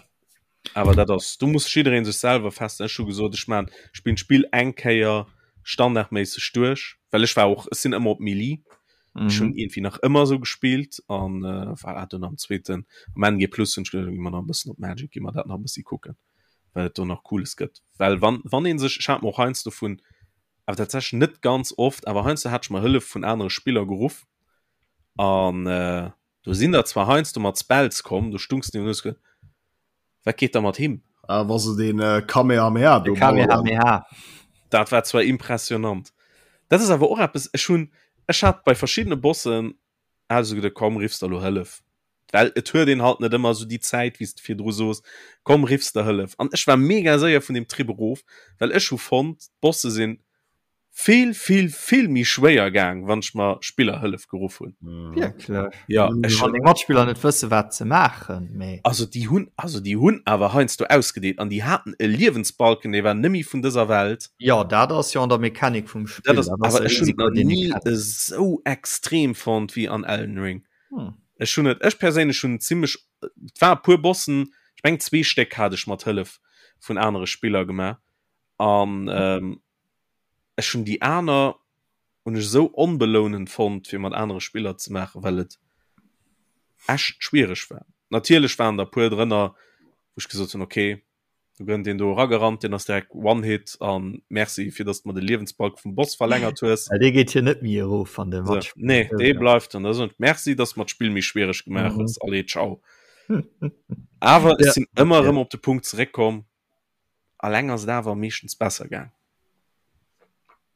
Awer dat ass, do muss jiddereen sech selwer feststellen. Ech hu gesot, ech maan, spillen d'Spill eng Kéier standardméisseg duerch, well ech war och, ech sinn ëmmer op Melee. Ech hunn iergendwéi nach ëmmer esou gespillt an äh, voilà, dunn am zweeten, am NG Plus hunn ech geduecht, gi mer nach e bëssen op Magic, gi mer dat nach e bëssi kucken, wat et do nach Cooles gëtt. Well wann, wann ee sech, ech hat mer och heiansdo vun awer tatsächlech net ganz oft, awer heiansdo hat ech mer Hëllef vun anere Spiller geruff an äh, do sinn der zwar heiansdo mat Spells komm, do stungs du an hues ge wat geet da mat him? Ah, wa se den äh, Kamehameha do Kamehameha. Dat war zwar impressionant. Dat ass awer och eppes, ech hunn, ech hat bei verschiddene Bossen hat ech esou geduet, komm riffs der elo Hëllef. Well et huet een halt net ëmmer esou déi Zäit, wéi s de virdru soos, komm riffs der Hëllef. An ech war mega séier vun deem Trip erof, well ech hu fonnt, d'Bosse sinn vill, vill, vill méi schwéier gaang, wann ech mer Spillerhëllef geruff hunn. Wierklech? Ja, ech Wann deng Matspiller net wësse wat se maachen, mee. Also déi hunn, also déi hunn awer heiansdo ausgedeelt an déi haten e Liewensbalken, dee war nëmme vun dëser Welt. Jo, dat ass jo an der Mechanik vum Spill. Dat ass, awer ech hunn et nach ni esou extrem fonnt wéi an Elden Ring. Hm. Ech hunn et, ech perséinlech hunn zimmlech, et war e puer Bossen, ech mengen zwee Stéck hat ech mat Hëllef vun anere Spiller gemaach an ähm, ech hunn déi aner hunn ech esou onbelounend fonnt fir mat anere Spiller ze maachen, well et echt schwiereg war. Natierlech waren der e puer drënner, wou ech gesot hunn, okay, Do gënnt een do eragerannt, deen ass direkt One-Hit an Merci fir dass de mer de Liewensbalk vum Boss verlängert hues. Well dee geet jo net méi erof wann de So, matspillt. nee, dee bleift an da soen ech Merci, dass de mer d'Spill méi schwiereg gemaach hues. Allez, ciao. Awer ech sinn ëmmer erëm op de Punkt zeréckkomm, alleng ass et awer meeschtens besser gaang.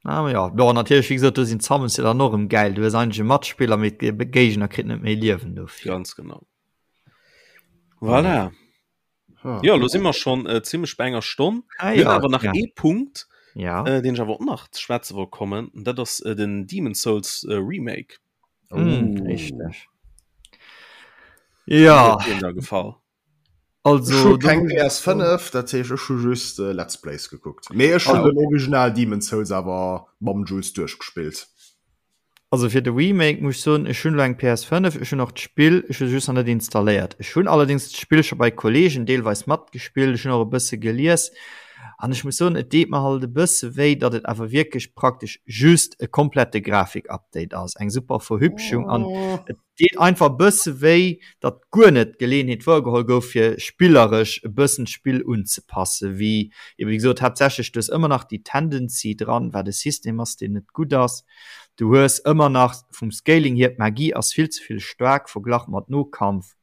Ah, ja, bon, natierlech, wéi gesot, do sinn d'Summons jo dann och erëm gäil. Du hues eigentlech e Matspiller, mee de Géigner kritt net méi Liewen dofir. Ganz genau. Voilà. Ja, lo si mer schon äh, ziemlech bei enger Stonn. Ah, Mir ja, awer nach ja. ee Punkt, Ja. äh, den ich awer och nach ze schwätze wollt kommen. Und dat ass äh, den Demon Souls äh, Remake. Mm, richtig. Ja, Huet dir da gefall? also Ech hu do keng muss ich PS5, dat heescht ech hu just äh, Let's Plays gekuckt. Mee ech hun Ah. den Original Demon's Souls awer mam Jules duerchgespillt. Also fir de Remake muss ech soen, ech hunn elo eng PS5, ech hunn och d'Spill, ech hu se just nach net installéiert. Ech hunn allerdéngs d'Spill scho bei Kollegen deelweis matgespillt, ech hunn och e bësse gelies an ech muss soen, et deet mer halt e bësse wéi, datt et awer wierklech praktesch just e komplette Grafik-Update ass, eng super Verhübschung an et deet einfach e bësse wéi, datt guer net d'Geleeënheet wouergeholl gouf, fir spilleresch e bëssen d'Spill unzepassen, wéi ebe wéi gesot haaptsächlech, du hues ëmmer nach déi Tendency dran, wat e System ass, deen net gutt ass, du hues ëmmer nach vum Scaling hier, d'Magie ass vill ze vill staark verglach mat Nokampf,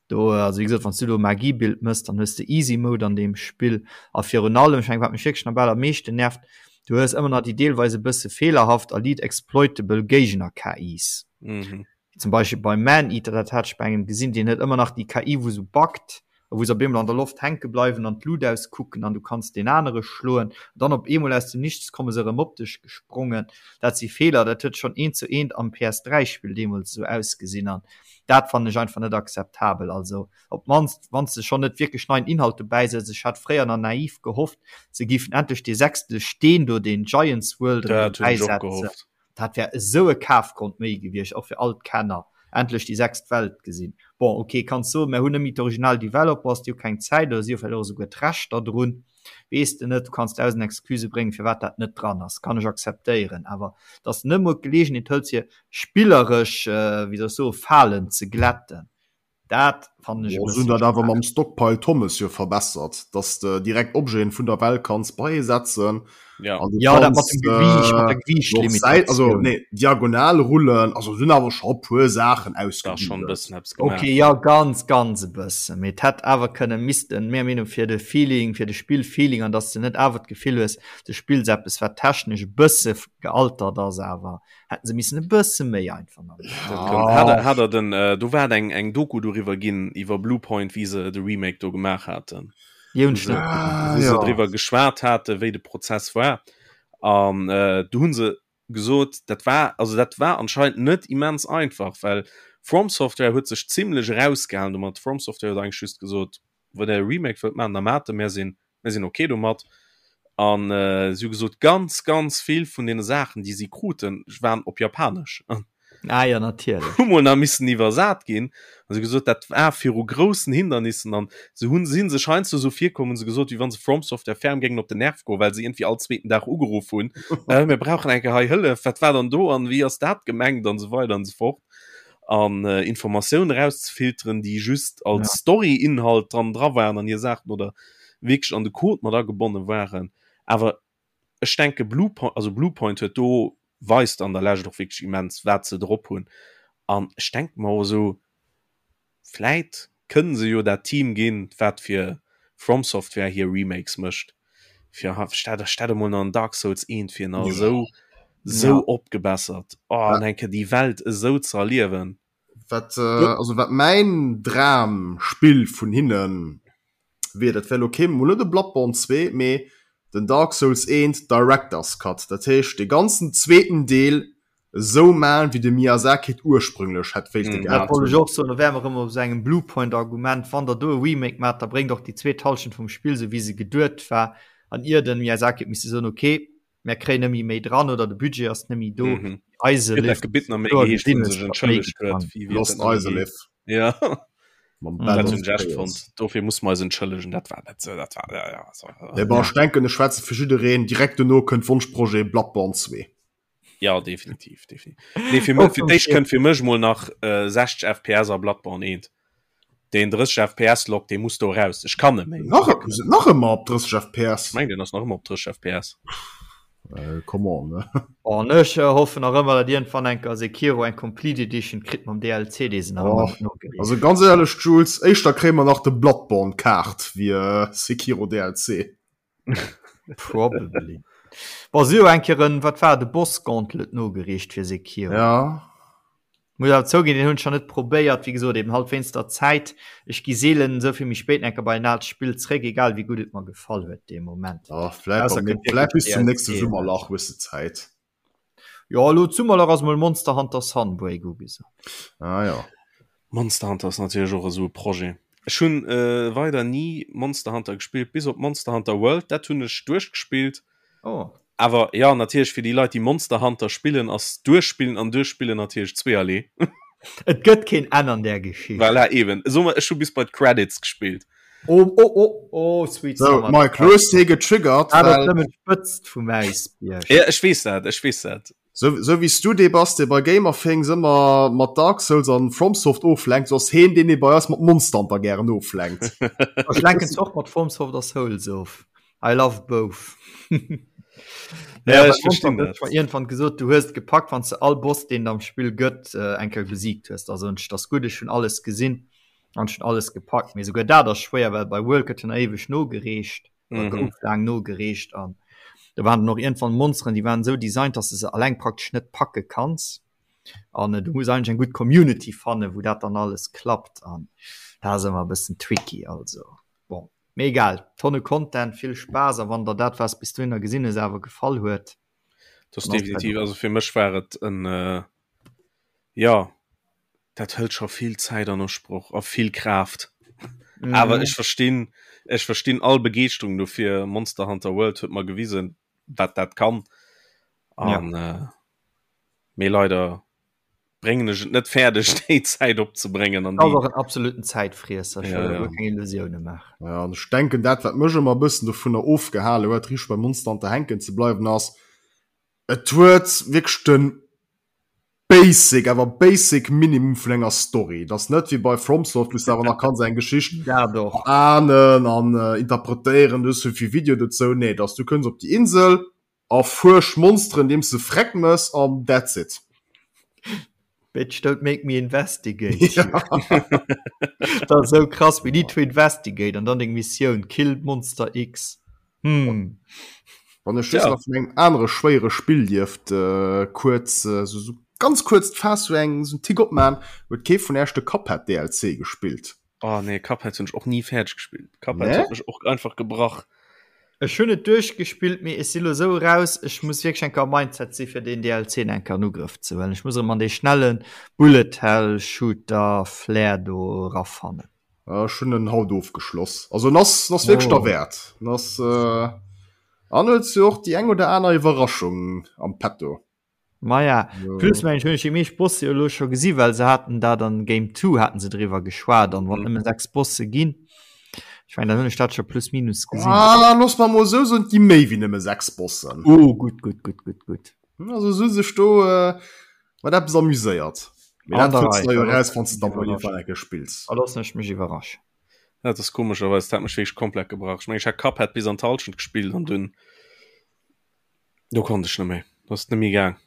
do, also wéi gesot, wann s du do e Magie-Build mëss, dann hues de Easy Mode an deem Spill a virun allem, ech mengen, wat mech wierklech nach bal am meeschten nervt, du hues ëmmer nach déi deelweis e bësse feelerhaft a liit exploitable Géigner-KIs. Mhm. Zum Beispill beim Maneater, dat hat ech bei engem gesinn, deen huet ëmmer nach déi KI, wou sou buggt a wou se op eemol an der Loft hänke bleiwen an d'Lut auskucken an du kanns deen anere schloen. An dann op eemol aus dem Nichts komme se erëm op dech gesprongen. Dat si Feeler, dat huet schonn eent zu eent am PS3-Spill deemools esou ausgesinn an dat fannen ech einfach net akzeptabel. Also op d'mannst, wann s de schonn net wierklech neien Inhalt dobäi setz. Ech hat fréier nach naiv gehofft, se géifen endlech dee sechste Steen do, deen Giants World, erëm Dat hunn ech och dobäisetzen. gehofft. Dat wär esou e Kafgrond méi gewiescht, och fir all d'Kenner, endlech déi sechst Welt gesinn. Bon, ok, kanns soen, mär hunn net méi d'original Developers, déi hu keng Zäit oder si hu vläicht och esouguer d'Rechter drun, weess de net. Du kanns dausend Excusë bréngen, firwat dat net dran ass, kann ech akzeptéieren. Awer dass de net emol d'Geleegenheet hëls, fir spilleresch, wéi soll ech soen, Falen ze glätten, Dat fannen ech e Bon, se hunn bëssen dat awer schwaach. mam Stockpile Thomas jo verbessert, dass de direkt Objeten vun der Welt kanns beisetzen Ja. an du Ja, dat mat kanns dem Gewiicht, mat der äh, och Säit, also Gewiichtlimitatioun. nee, diagonal rullen, also se hunn awer scho e puer Saachen Da schon e ausgebügelt. bëssen eppes gemaach. Okay, ja, ganz, ganz e bëssen. Mee et hätt awer kënnen, missten, menger Meenung, fir de Feeling, fir de Spillfeeling an dass de net awer d'Gefill hues, du spills eppes, wat technesch e bësse gealtert ass, awer hätten se missen e bësse méi einfach nach ah. hat, hat er den äh, du war eng eng Doku darüber ginn iwwer Bluepoint wie se de Remake do gemaach hatten ah, ja. ja. drüber geschwart hatte wéi de Prozess war an äh, du hunn se gesot dat war also dat war anscheinend net immens einfach well From Software huet sech ziemlich rausgehalen du mat From Software huet eigentlich just gesot wann der Remake wëllt man da mat mir sinn mir sinn okay domat an äh, si hu gesot ganz ganz vill vun den Saachen déi si kruten waren op japanesch an Ah ja, natierlech. hu mol nach missen iwwersat ginn an si gesot dat war viru groussen Hindernissen an se hunn sinn sech heiansdo sou virkomm hunn se gesot wéi wann se From Software ferm géingen op den Nerv goen well se iergendwéi all zweeten Dag ugeruff hunn äh, mir brauchen eng Kéier hei Hëllef wat war dann do an wéi ass dat gemengt an esou weider an esou fort an äh, Informatioun erauszefilteren, déi just als ja. Story-Inhalt dran dra waren an hir Saachen oder wierklech an de Code mat agebonne waren. Awer ech denke Bluepoint, also Bluepoint huet do weist an der Lescht och wierklech immens, wat se drop hunn. An ech denke mer och esou, vläit kënnen se jo dat Team ginn, wat fir From Software hir Remakes mécht, fir stell stell emol nach en Dark Souls 1 fir nach esou esou opgebessert, oh an eng Kéier déi Welt esou ze erliewen. Wat also wat mäin Dramspill vun hinnen wier, dat wär elo kee mol net e Bloodborne 2, mee den Dark Souls 1 Director's Cut, dat heescht dee ganzen zweeten Deel esou maan wéi de Miyazaki et ursprünglech hätt wéilte Dat gehat wollt ech hunn. och soen, do wäre mer erëm op esou engem Bluepoint-Argument, Wann der do e Remake maacht, da bréngt och déi zweet Hallschent vum Spill esou wéi se geduet war an ier den Miyazaki huet misse soen, ok, mär kréien nëmme méi dran oder de Budget ass nëmme do. Mhm. Eise Huet dat Lift Gebitt nach méi kloer geheescht, gesinn wou hues, sech datt méi entschëllegt huet, getan. wéi wéi huet Lost dat nach méi Izalith. geheescht? Ja. Mam Mhm. Bed Dat of hunn ech echt Chaos. fonnt. Dofir muss mer eis entschëllegen, dat war net sou, dat war, ja, ja, so, Nee, bon, ja. ech denken, ech schwätze fir jiddereen, direkt dono kënnt Wonschprojet Bloodborne 2. Ja, definitiv, definitiv. Nee, fir, oh, fir d'éischt kënnt fir mech mol nach äh, 60 FPS a Bloodborne 1. Den 30 FPS Lock, dee muss do raus. Ech kann net méi. Nach, nach ëmmer op 30 FPS? Ech meng, den ass nach ëmmer op 30 FPS. Äh, come on, ne? Oh, an ech äh, hoffen nach ëmmer, datt iergendwann eng Kéier Sekiro eng Complete Edition kritt mam DLC, dee se nach oh, ëmmer nogereecht. Also ganz ehrlech, Jules, éischter kréie mer nach de Bloodborne Kaart wéi äh, Sekiro DLC. Probably. Bon, si hu eng Kéier en, wat war et, e Boss Gauntlet nogereecht fir Sekiro. Ja. Muss awer zouginn, deen hunn ech nach net probéiert, wéi gesot, eben halt wéinst der Zäit. Ech gi seelen esou vill méi spéit enker bei en aalt Spill zréck, egal wéi gutt et mer gefall huet dee Moment. Ja, vläit Ausser beim, kënnt vläit wierklech bis zum DLC nächste eraus. Summerlach hues de Zäit. Jo, elo d'Summerlach ass mol Monster Hunter Sunbreak ugesot. Ah ja. Monster Hunter ass natierlech och esou e Projet. Ech hunn weider ni Monster Hunter gespillt, bis op Monster Hunter World, dat hunn ech duerchgespillt. Oh. Awer ja natierlech fir déi Leit déi Monster Hunter spillen ass duerchspillen an duerchspillen natierlech zweeërlee. Et gëtt keen Enn an där Geschicht. Voilà eben. Soe mer ech hu bis bei d'Credits gespillt. Oh oh oh oh sweet So summer Mike, lo hues de hie getriggert, Dat ass well nëmmen d'Spëtzt vum Äisbierg. Ja ech weess dat, ech weess dat. sou sou wéi s du dee bass, dee bei Gamerthings ëmmer mat Dark Souls an FromSoft oflenkt, sou ass heen deen, dee bei eis mat Monster Hunter gären oflenkt. Ech lenken zwar och mat FromSoft a Souls of. I love both. Ja, ech verstinn dat. Irgendwann gesot, du hues gepackt, wann du all Boss, deen am Spill gëtt, äh, eng Kéier besiegt hues. Also und das gut, ech hun alles gesinn an schon alles gepackt. Mee souguer dat ass schwéier, well bei World gëtt jo nach éiweg nogereecht, oder mhm. gouf laang nogereecht an da waren noch irgendwann Monsteren, déi waren sou designt, dass du se alleng praktesch net packe kanns. An äh, du muss eigentlich eng gutt Community fannen, wou dat dann alles klappt an da ass ëmmer e bëssen tricky also. Bon. Mee egal, Tonne Content, vill Spaass a wann der dat was bis dohinner gesinn hues awer gefall huet, Das definitiv, also fir mech war et en äh, ja dat hëlt scho vill Zäit an Usproch a vill Kraaft. Mm. Awer ech verstinn ech verstinn all Begeeschterung dofir. Monster Hunter World huet mer gewisen, wat dat kann. An ja. äh, mee leider bréngen ech et net fäerdeg déi Zäit opzebréngen an ass och en absoluten Zäitfriesser ech wëll ja, ja. keng Illusioune maachen. Ja, an ech denken dat wat mech ëmmer e bëssen dovunner ofgehale huet riicht bei Monster Hunter hänken ze bleiwen ass et huet wierklech de Basic awer Basic Minimum vun enger Story. Et ass net wéi bei FromSoft wou s de awer nach kanns eng Geschicht Dat och. ahnen an interpretéieren, du hues souvill Video dozou. Nee, et ass du kënns op déi Insel, Erfuersch Monsteren deems de Freck mëss an that's it. Bitch don't make me investigate you. Dat ass esou krass, we need to investigate an dann deng Missioun, kill Monster X. Hm. Wann ech just nach vun engem anere schwéiere Spill dierft kuerz, sou ganz kuerz d'Faass sou eng sou en Tick opman, huet kee vun Äech de Cuphead DLC gespillt? Oh nee, Cuphead hunn ech och ni fäerdeg gespillt. Cuphead nee? huet mech och einfach gebrach. Ech hunn et duerchgespillt, mee ech si lo sou raus, ech muss wierklech eng Kéier am Mindset si fir deen DLC eng Kéier an Ugrëff ze huelen. Ech muss erëm an dee schnelle Bullet Hell Shooter Flair do erafannen. Ech hunn en haut ofgeschloss. Also en ass, en ass wierklech oh. derwäert. En ass äh, an huet jo och déi eng oder aner Iwwerraschung am Petto. Maja, plus mengen ech hunn ech déi meescht Bosse jo elo scho gesi well se haten dat an Game 2 haten se driwwer geschwat an wann mhm. nëmme 6 Bosse ginn. Ech mengen, dann hunn ech dat scho plus minus gesinn. Ah, looss mer mol sou soen, et gi méi wéi nëmme 6 Bossen. Oh, gutt, gutt, gutt, gutt, gutt. Also se hu sech do äh, mat eppes amuséiert. Mee dat fënns du jo eraus, wann s de dann mol iergendwann eng Kéier spills. Da loossen ech mech iwwerraschen. Dat ass komescherweis, dat hat mech wierklech komplett gebrach. Ech mengen, ech hat Cuphead bis an d'Hallschent gespillt an dunn Do konnt ech net méi, do ass et net méi gaang.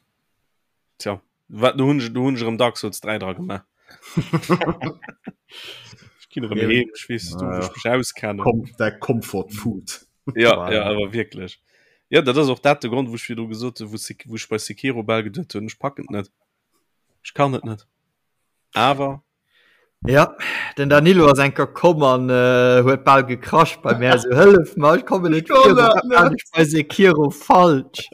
Tja, wat do hunn ech do hunn ech erëm Dark Souls 3 dra gemaach. Ech ginn erëm heem, ech weess do wou ech mech auskennen. Kom der Comfort Food. Ja, ja, awer wierklech. Ja, dat ass och dat de Grond, wou ech virdru gesot hunn, wou Sek wou ech bei Sekiro bal geduet hunn, ech packen et net. Ech kann et net. Awer Ja, den Danilo ass enker komm an äh, huet bal gekrasch bei mär so hëllef mer, ech kommen net kann dat virun, net. ech bei Sekiro falsch.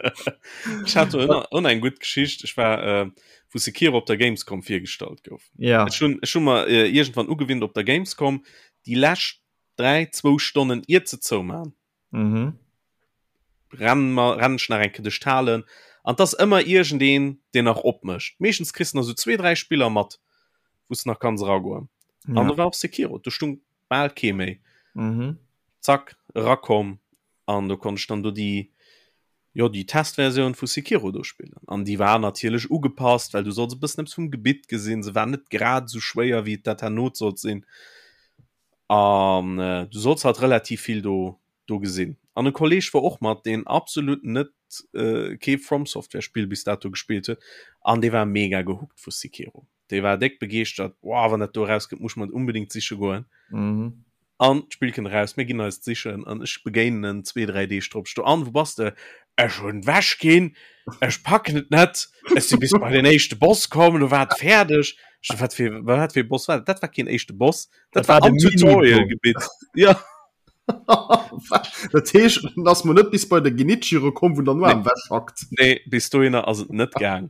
Ech hat och eng gutt Geschicht. Ech war äh, wou Sekiro op der Gamescom virgestallt gouf. Ja. Ech hunn ech hunn mer äh, iergendwann ugewinnt op der Gamescom déi lescht 3, zwou Stonnen iert se zoumaan. Mhm. Renn mer renn ech nach eng Kéier duerch d'Halen an 't ass ëmmer iergendeen, deen nach opmécht. Meeschtens kriss de nach esou zwee, dräi Spiller mat, wou s de nach kanns eragoen. An Ja. do war och Sekiro, do stung bal kee méi. Mhm. Zack, erakomm an do konnt ech dann do déi, jo, déi Testversioun vu Sekiro do spillen. An déi war natierlech ugepasst, well du solls e bëssen eppes vum Gebitt gesinn. Se war net grad esou schwéier, wéi et dat herno sollt sinn. An du solls halt relativ vill do do gesinn. An e Kolleg war och mat, deen absolut net kee From Software Spill bis dato gespillt huet an dee war mega gehookt vu Sekiro. Dee war déck begeeschtert, Wow, wann dat do erauskënnt, muss ech mer et unbedingt siche goen. An d'Spill kënnt eraus, mir ginn eis et sichen an ech begéinen en zwee, dräi Deeg drop. Ech do, An, wou bass de? Ech hunn ewech ginn, ech packen et net, ech si bis bei den éischte Boss komm, do war et fäerdeg. Ech so, wat fir, wat fir e Boss war dat? Dat war keen éischte Boss, dat, dat war, war am Tutorial-Gebitt. Ja. Dat heescht, en ass mol net bis bei de Genichiro komm, wou en dann nur am Wäsch hackt. Nee, bis dohinner ass et net gaang.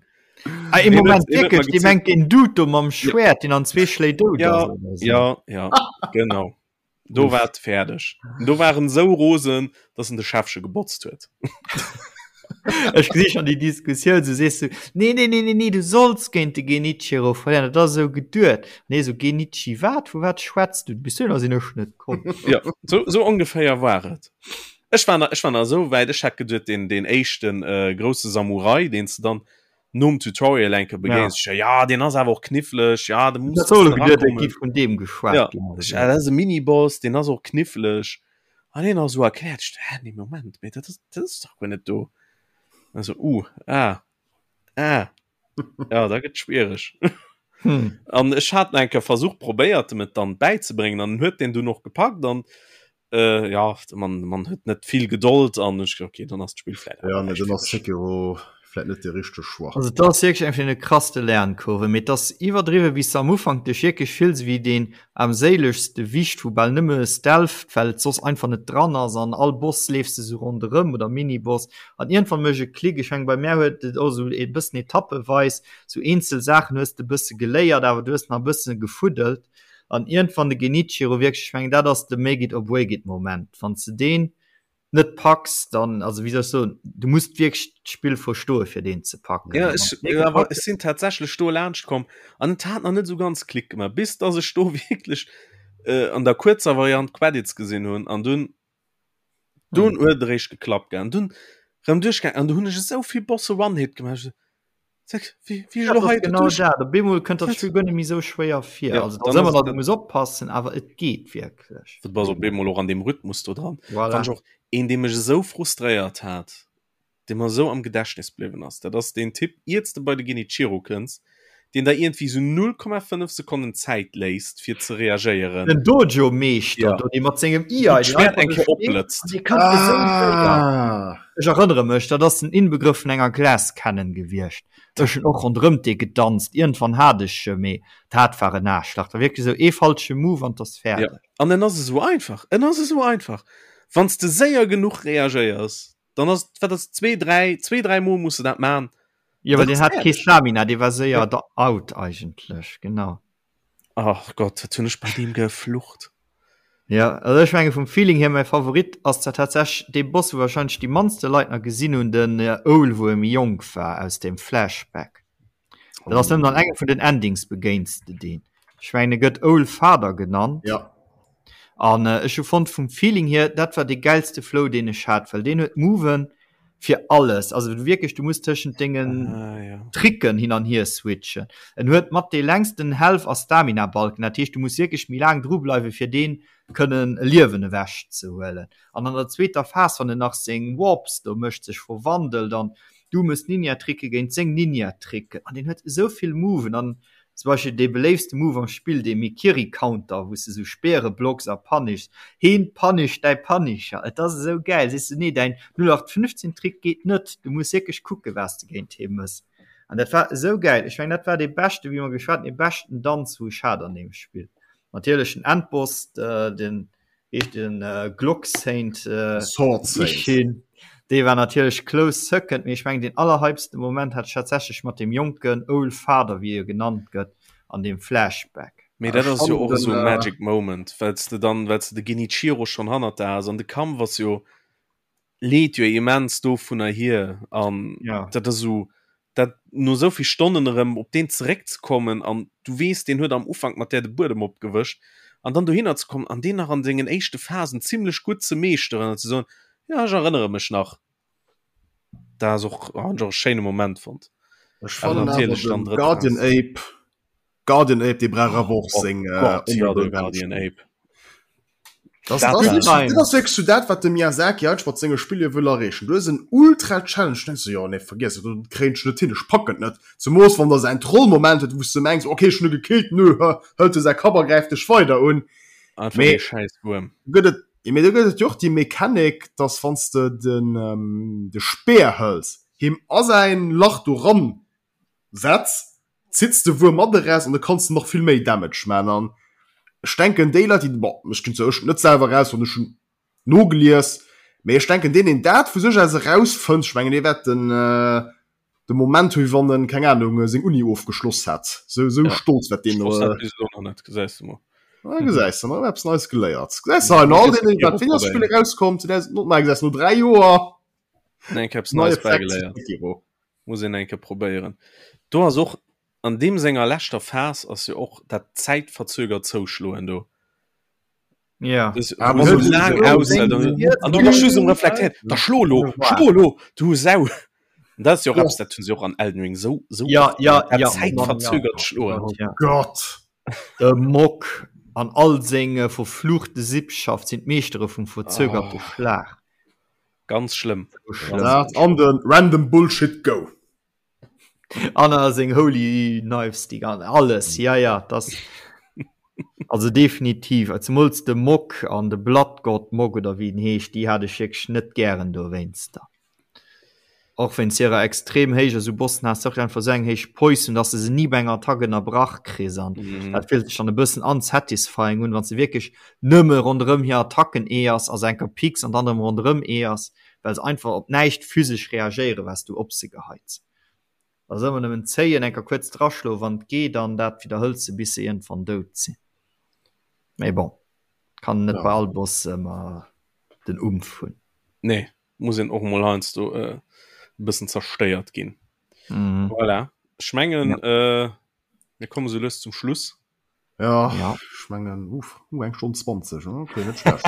Ah, ee Moment, wierklech, Dir mengt deen Dude do mam Schwäert, deen an zwee Schléi dout ja, ass? Oder so? Ja, ja, genau. Do war et fäerdeg. Do war en esou rosen, dass en de Schäffche gebotzt huet. Ech gesi schon déi Diskussioun, so sees du, nee, nee, nee, nee, nee, du solls géint de Genichiro verléieren, dat ass esou geduet. Nee, so Genichi wat? Vu wat schwätz du? Bis dohinner sinn ech net komm. Ja, so, so ongeféier war et. Ech war nach, ech war nach esou wäit, ech hat geduet, deen, deen éischten äh, grousse Samurai, deen s de dann nom Tutorial enke begéins, ja, ja deen ass awer och kniffleg, ja, de muss Dat soll geduet, et gi vun deem geschwat Ja, ginn. ech, ah, dat ass e Miniboss, deen ass och kniffleg. An hien ass esou erkläert, ech, hä, nee, Moment, mee dat ass, dat ass dach guer net do. Also, uh, ah, ah. Ja, da gëtt schwiereg. Hm. An ech hat eng Kéier versucht, probéiert, em et dann bäizebréngen, an en huet deen dunn och gepackt an äh, ja, de Mann, de Mann huet net vill Gedold an ech, okay, dann ass d'Spill vläit Ja, nee, dann ass Sekiro vläit net de richtege Choix. Also et ass wierklech eng vun de krasste Lernkurven, mee et ass iwwerdriwwen, wéi s de am Ufank dech wierklech fills wéi deen aarmséilegste Wicht, wou bal nëmme stealtht, well et soss einfach net dran ass an all Boss leefs de sou ronderëm oder Miniboss an iergendwann mécht e Klick. Ech mengen bei mär huet et och sou e bëssen etappeweis sou eenzel Saachen hues de e bësse geléiert, awer du hues nach e bësse gefuddelt an iergendwann de Genichiro wierklech, ech mengen dat ass de Make it or break it Moment, wann s de deen net packs, dann, also wéi soll ech soen, du muss wierklech d'Spill verstoe fir deen ze packen. Ja, ech, awer ech sinn tatsächlech do laanscht komm an et hat nach net esou ganz Klick gemaach, bis dass ech do wierklech äh, an der kuerzer Variant d'Credits gesinn hunn an dunn dunn huet et eréischt geklappt gell an dunn rëm duerchgaang an du hunn ech esou vill Bosse One-Hit gemaach. Sag, wie, wie Ja, lo hei genau durch? dat. Op eemol kënnt dat Spill guer net méi sou schwéier vir. Ja, also dann da ëmmer ass nach, et- du muss oppassen, awer et geet wierklech. Du bass op eemol och an dem Rhythmus do dran. Voilà. Fand ich och een, dee mech esou frustréiert hat, dee mer esou am Gedächtnis bliwwen ass. Dat ass deen Typ, iert s de bei de Genichiro kënns, deen der iergendwéi sou 0,5 Sekonnen Zäit léisst, fir ze reagéieren. Den Dojo-Meeschter Ja. do, dee mat sengem Wou Iai, deen d'Schwäert einfach eng do Kéier steet, opblëtzt. an dee kann esou séier. Ah. Ech erënnere mech, dat ass den Inbegrëff vun enger Glass Cannon gewiescht. Ech hunn och ronderëmt dee gedanzt. Iergendwann hat ech e, mee dat war en Aarschlach. Dat war wierklech esou ee falsche Move an 't ass Ja, fäerdeg. an en ass esou einfach, en ass esou einfach. Wann s de séier genuch reagéiers, dann ass, wat ass, zwee, dräi, zwee, dräi Mol muss de dat man. Jo, well Dann deen ass hat kee fäerdeg. Stamina, dee war séier Ja. da out eigentlech, genau. Ach Gott, wat hunn ech bei deem geflucht. Ja, also ech menge vum Feeling hier mäi Favorit ass zwar tatsächlech dee Boss, wou wahrscheinlech déi mannste Leit nach gesinn hunn, den Owl, wou e méi jonk war, aus dem Flashback. Dat ass nëmmen an engem vun den Endings begéins de deen. Ech mengen e gëtt Owl Father genannt. Ja. An ech hu fonnt vum Feeling hier, dat war dee gäilste Flow deen ech hat, well deen huet Moven fir alles. Also du wierklech, du muss tëschent dengen Ah, ja. Tricken hin an hier switchen. En huet mat dee längsten Health a Stamina Balken, dat heescht du muss wierklech méi laang dru bleiwe fir deen kënnen e Liewen ewech ze huelen. An an der zweeter Phas, wann en nach seng Warps do mécht, sech verwandelt an du mëss Ninja-Tricke géint seng Ninja-Tricken an deen huet esou vill Moven an zum Beispill dee beléiftste Move am Spill, dee Mikiri-Counter, wou s de sou Speere blocks a punishs, heen punisht däi Punisher, et ass esou gäil, sees du, nee däin 0815 Trick geet net, du muss wierklech kucke wat s de géint hee mëss an dat war esou gäil. Ech mengen dat war dee beschte, wéi mer geschwat hunn, dee beschten Danz wou ech hat an deem Spill. Natierlech den Endboss, den heescht den Glock Saint Sword Saint. Ichin, dee war natierlech close second, mee ech mengen deen allerhypsten Moment hat ech tatsächlech mat deem jonken Old Father, wéi e genannt gëtt, an deem Flashback. Mee dat Ech ass jo fannen och esou den e Magic Moment, well s de dann, well s de de Genichiro schonn hannert der has an de Kampf ass jo leet jo immens dovunner hier an ja. dat ass esou dat no esou vill Stonnen erëm op deen zeréckzekommen an du weess deen huet am Ufank mat där de Buedem opgewëscht an dann dohinner ze kommen an deen nach an sengen éischte Phasen zimlech gutt ze meeschteren an ze soen ja ech erënnere mech nach dat ass och hunn ech och e schéine Moment fonnt. Ech Awer fannen awer natierlech dann den drëtt Guardian Phas. Ape Guardian Ape dee brauch awer och Oh seng äh, Gott, ja, honorable de Guardian Mention. Ape. Das, Dat das, war- das, das ass wierklech so dat, wat de Miyazaki eigentlech mat senge Spiller wëll erreechen. Du hues en ultra Challenge, denkst du, jo, nee, vergiess et, dat kréien ech net hin, ech packen et net. Zemoos wann der säin Trollmoment huet, wou s du mengs, okay, ech hunn e gekillt, nö, hë, hëlt e säi Kapp a gräift dech weider un. Einfach Mee- ee schäiss Wuerm. Gëtt et, mee do gëtt et jo och déi Mechanik, dass wann s de den, ähm, de Speer hëls, him a säin Lach do ran setz, zitts de Wuerm mat eraus an da kanns de nach vill méi Damage man. An ech denken déi Leit déi, bon ech ginn zwar ech net selwer eraus wann ech hunn nogelies, mee ech denken deen deen dat vu sech aus erausfënnt, ech mengen dee wäert den de Moment hu wéi wann en, keng Ahnung, seng Uni ofgeschloss hätt, sou sou Ja. stolz wäert deen Ech dat bis elo nach net, gesäis de mol. Ah, gesäis de, nach eppes Neies geléiert. Gesäis de hei no all deenen, wat Fingerspiller erauskommt, 2009, gesäis no 3 Joer. Eng Kéier eppes Neies bäigeléiert. Muss een eng Kéier probéieren. Do ass och an deem senger leschter Phas ass jo och dat zäitverzögert Zouschloen do. Ja. Das, ah, wo so lang aushält an du bass just um reflektéieren. Da schlo lo, schlo lo, du Sau. Und das ist jo och eppes, dat hunn se och an Elden Ring sou, sou Ja, oft ja, dat ja. zäitverzögert Schloen. Oh Gott. De Mock an all seng verfluchte Sippschaft sinn d'Meeschtere vum verzögerte Oh. Schlag. Ganz schlëmm. So schlëmm. Dat an den Random Bullshit Go. An a seng Holy Knives, déi gan alles. Ja, ja, das. Also definitiv. Zemools de Mock an de Blood God Mock oder wéi en heescht, déi hat ech wierklech net gären dowéinster. Och wéinst hirer extrem héijer, sou Bossen has de och einfach sou eng héich Poise hunn, dass de se ni bei enger Attack ënnerbrach kriss an Mhm. dat fillt sech dann e bëssen unsatisfying un, wann s de wierklech nëmme ronderëm hir Attacken eeërs a se enker picks an dann erëm ronderëm eeërs, well se einfach op näischt physesch reagéieren, wat s du op se geheits. Da ass ëmmer nëmmen zéien, enker kuerz draschloen, wann et geet, an dat widderhëls de, bis se iergendwann dout sinn. Mee bon, kann net Ja. bei all Boss ëmmer den Umf hunn. Nee. muss een och mol heiansdo e bëssen zerstéiert ginn. Mhm. Voilà. Ech mengen, Ja. äh, mir komme sou lues zum Schluss. Ja, Ja. ech mengen, uff, uh, eng Stonn 20, hm, okay, net schlecht.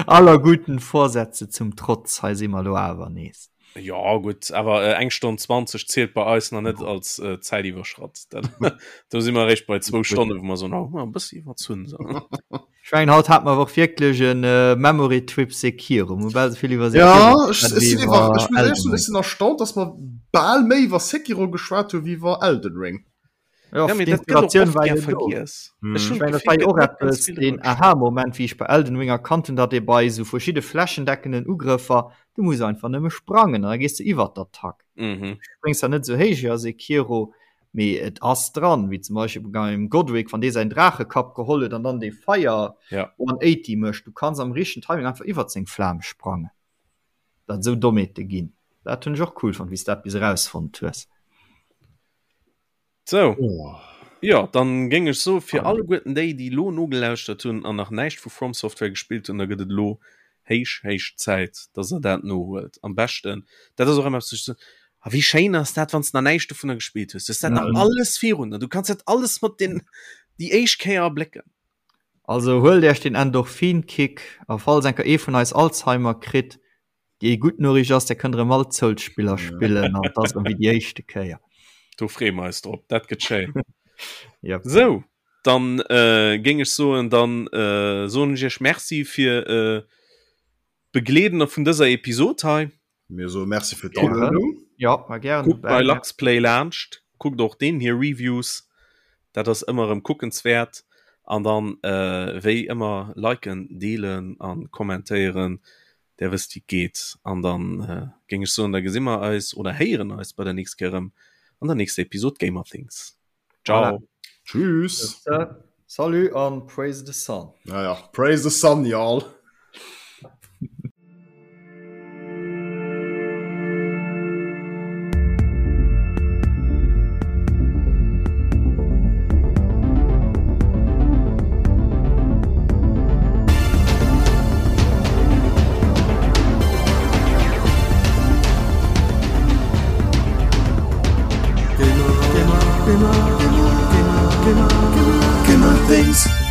Aller guten Vorsätze zum Trotz, hei si mer lo awer nees. Ja gutt, awer äh, eng Stonn 20 zielt bei eis nach net als äh, Zäit iwwerschratt. Dat, do si mer eréischt bei zwou Stonne, wou mer soen, oh, e bëssi iwwerzunn. So. Ech mengen haut hat mer och wierklech en Memory Trip Sekiro. Mir hu bal esou vill iwwer Sekiro Ja, ech, geschwat ech wéi sinn iwwer, iwwer ech muss éierlech Elden soen, ech Ring. sinn erstaunt, dass mer bal méi iwwer Sekiro geschwat hu wéi iwwer Elden Ring. Ja, Ja, mee dat gëtt och d'Inspiratioun oft war gär jo do. vergiess. Ech Ech hunn mengen, dat d'Gefill, war jo gëtt och net ganz eppes, vill deen driwwer geschwat. Aha-Moment, wéi ech bei Elden Ring erkannt hunn, datt ee bei esou verschidde flächendeckenden Ugrëffer, du muss einfach nëmme sprangen an da gees de iwwer d'Attack. Mhm. Du spréngs zwar net esou héich wéi a Sekiro, Mee et ass dran, wéi zum Beispill beim Godric, wann dee säin Draachekapp geholl huet an dann dee Feier ja. 180 mécht, du kanns am richtegen Timing einfach iwwert seng Flam sprangen. Dat esou Dommheete ginn. Dat hunn ech och cool fonnt, wéi s dat bis erausfonnt hues. Sou. Oh. Jo, dann géing ech soe fir alleguerten déi, déi elo nogelauschtert hunn an nach näischt vu From Software gespillt hunn, da gëtt et elo héich, héich Zäit, dass der dat nohuelt. Am beschten, dat ass och ëmmer eppes, wou ech soen, A wéi schéin ass dat, wann s de nach näischt dovunner gespillt hues. Du hues dat nach Mhm. alles virun der. Du kanns dat alles mat den déi éischt Kéier erblécken. Also huelt Iech den Endorphin-Kick a falls eng Kéier ee vun eis Alzheimer kritt, déi gutt Noriicht ass, der kënnt erëm all d'Souls-Spiller spillen an et ass erëm wéi déi éischte Kéier. Do freeë mer eis drop. Dat gëtt schéin. Yep. Sou, dann äh, géing ech soen, dann äh, soen ech Iech Merci fir äh, d'Begleeden vun dëser Episod hei. Mir soe Merci fir d'Aluedung. Ja, war gären Kuckt bei dobäi. Luxplay laanscht, kuckt och deen hir Reviews, dat ass ëmmer erëm kuckenswäert. An dann äh, wéi ëmmer liken, deelen an kommentéieren, där wësst wéi et geet. An dann äh, géing ech soen, da gesi mer eis oder héieren eis bei der nächst Kéier erëm an der nächster Episod Gamerthings. Ciao. Voilà. Tschüss. Salut an praise the sun. Ja, ja. Praise the sun, y'all. Gamer, gamer, gamer, gamer, gamer, gamer things.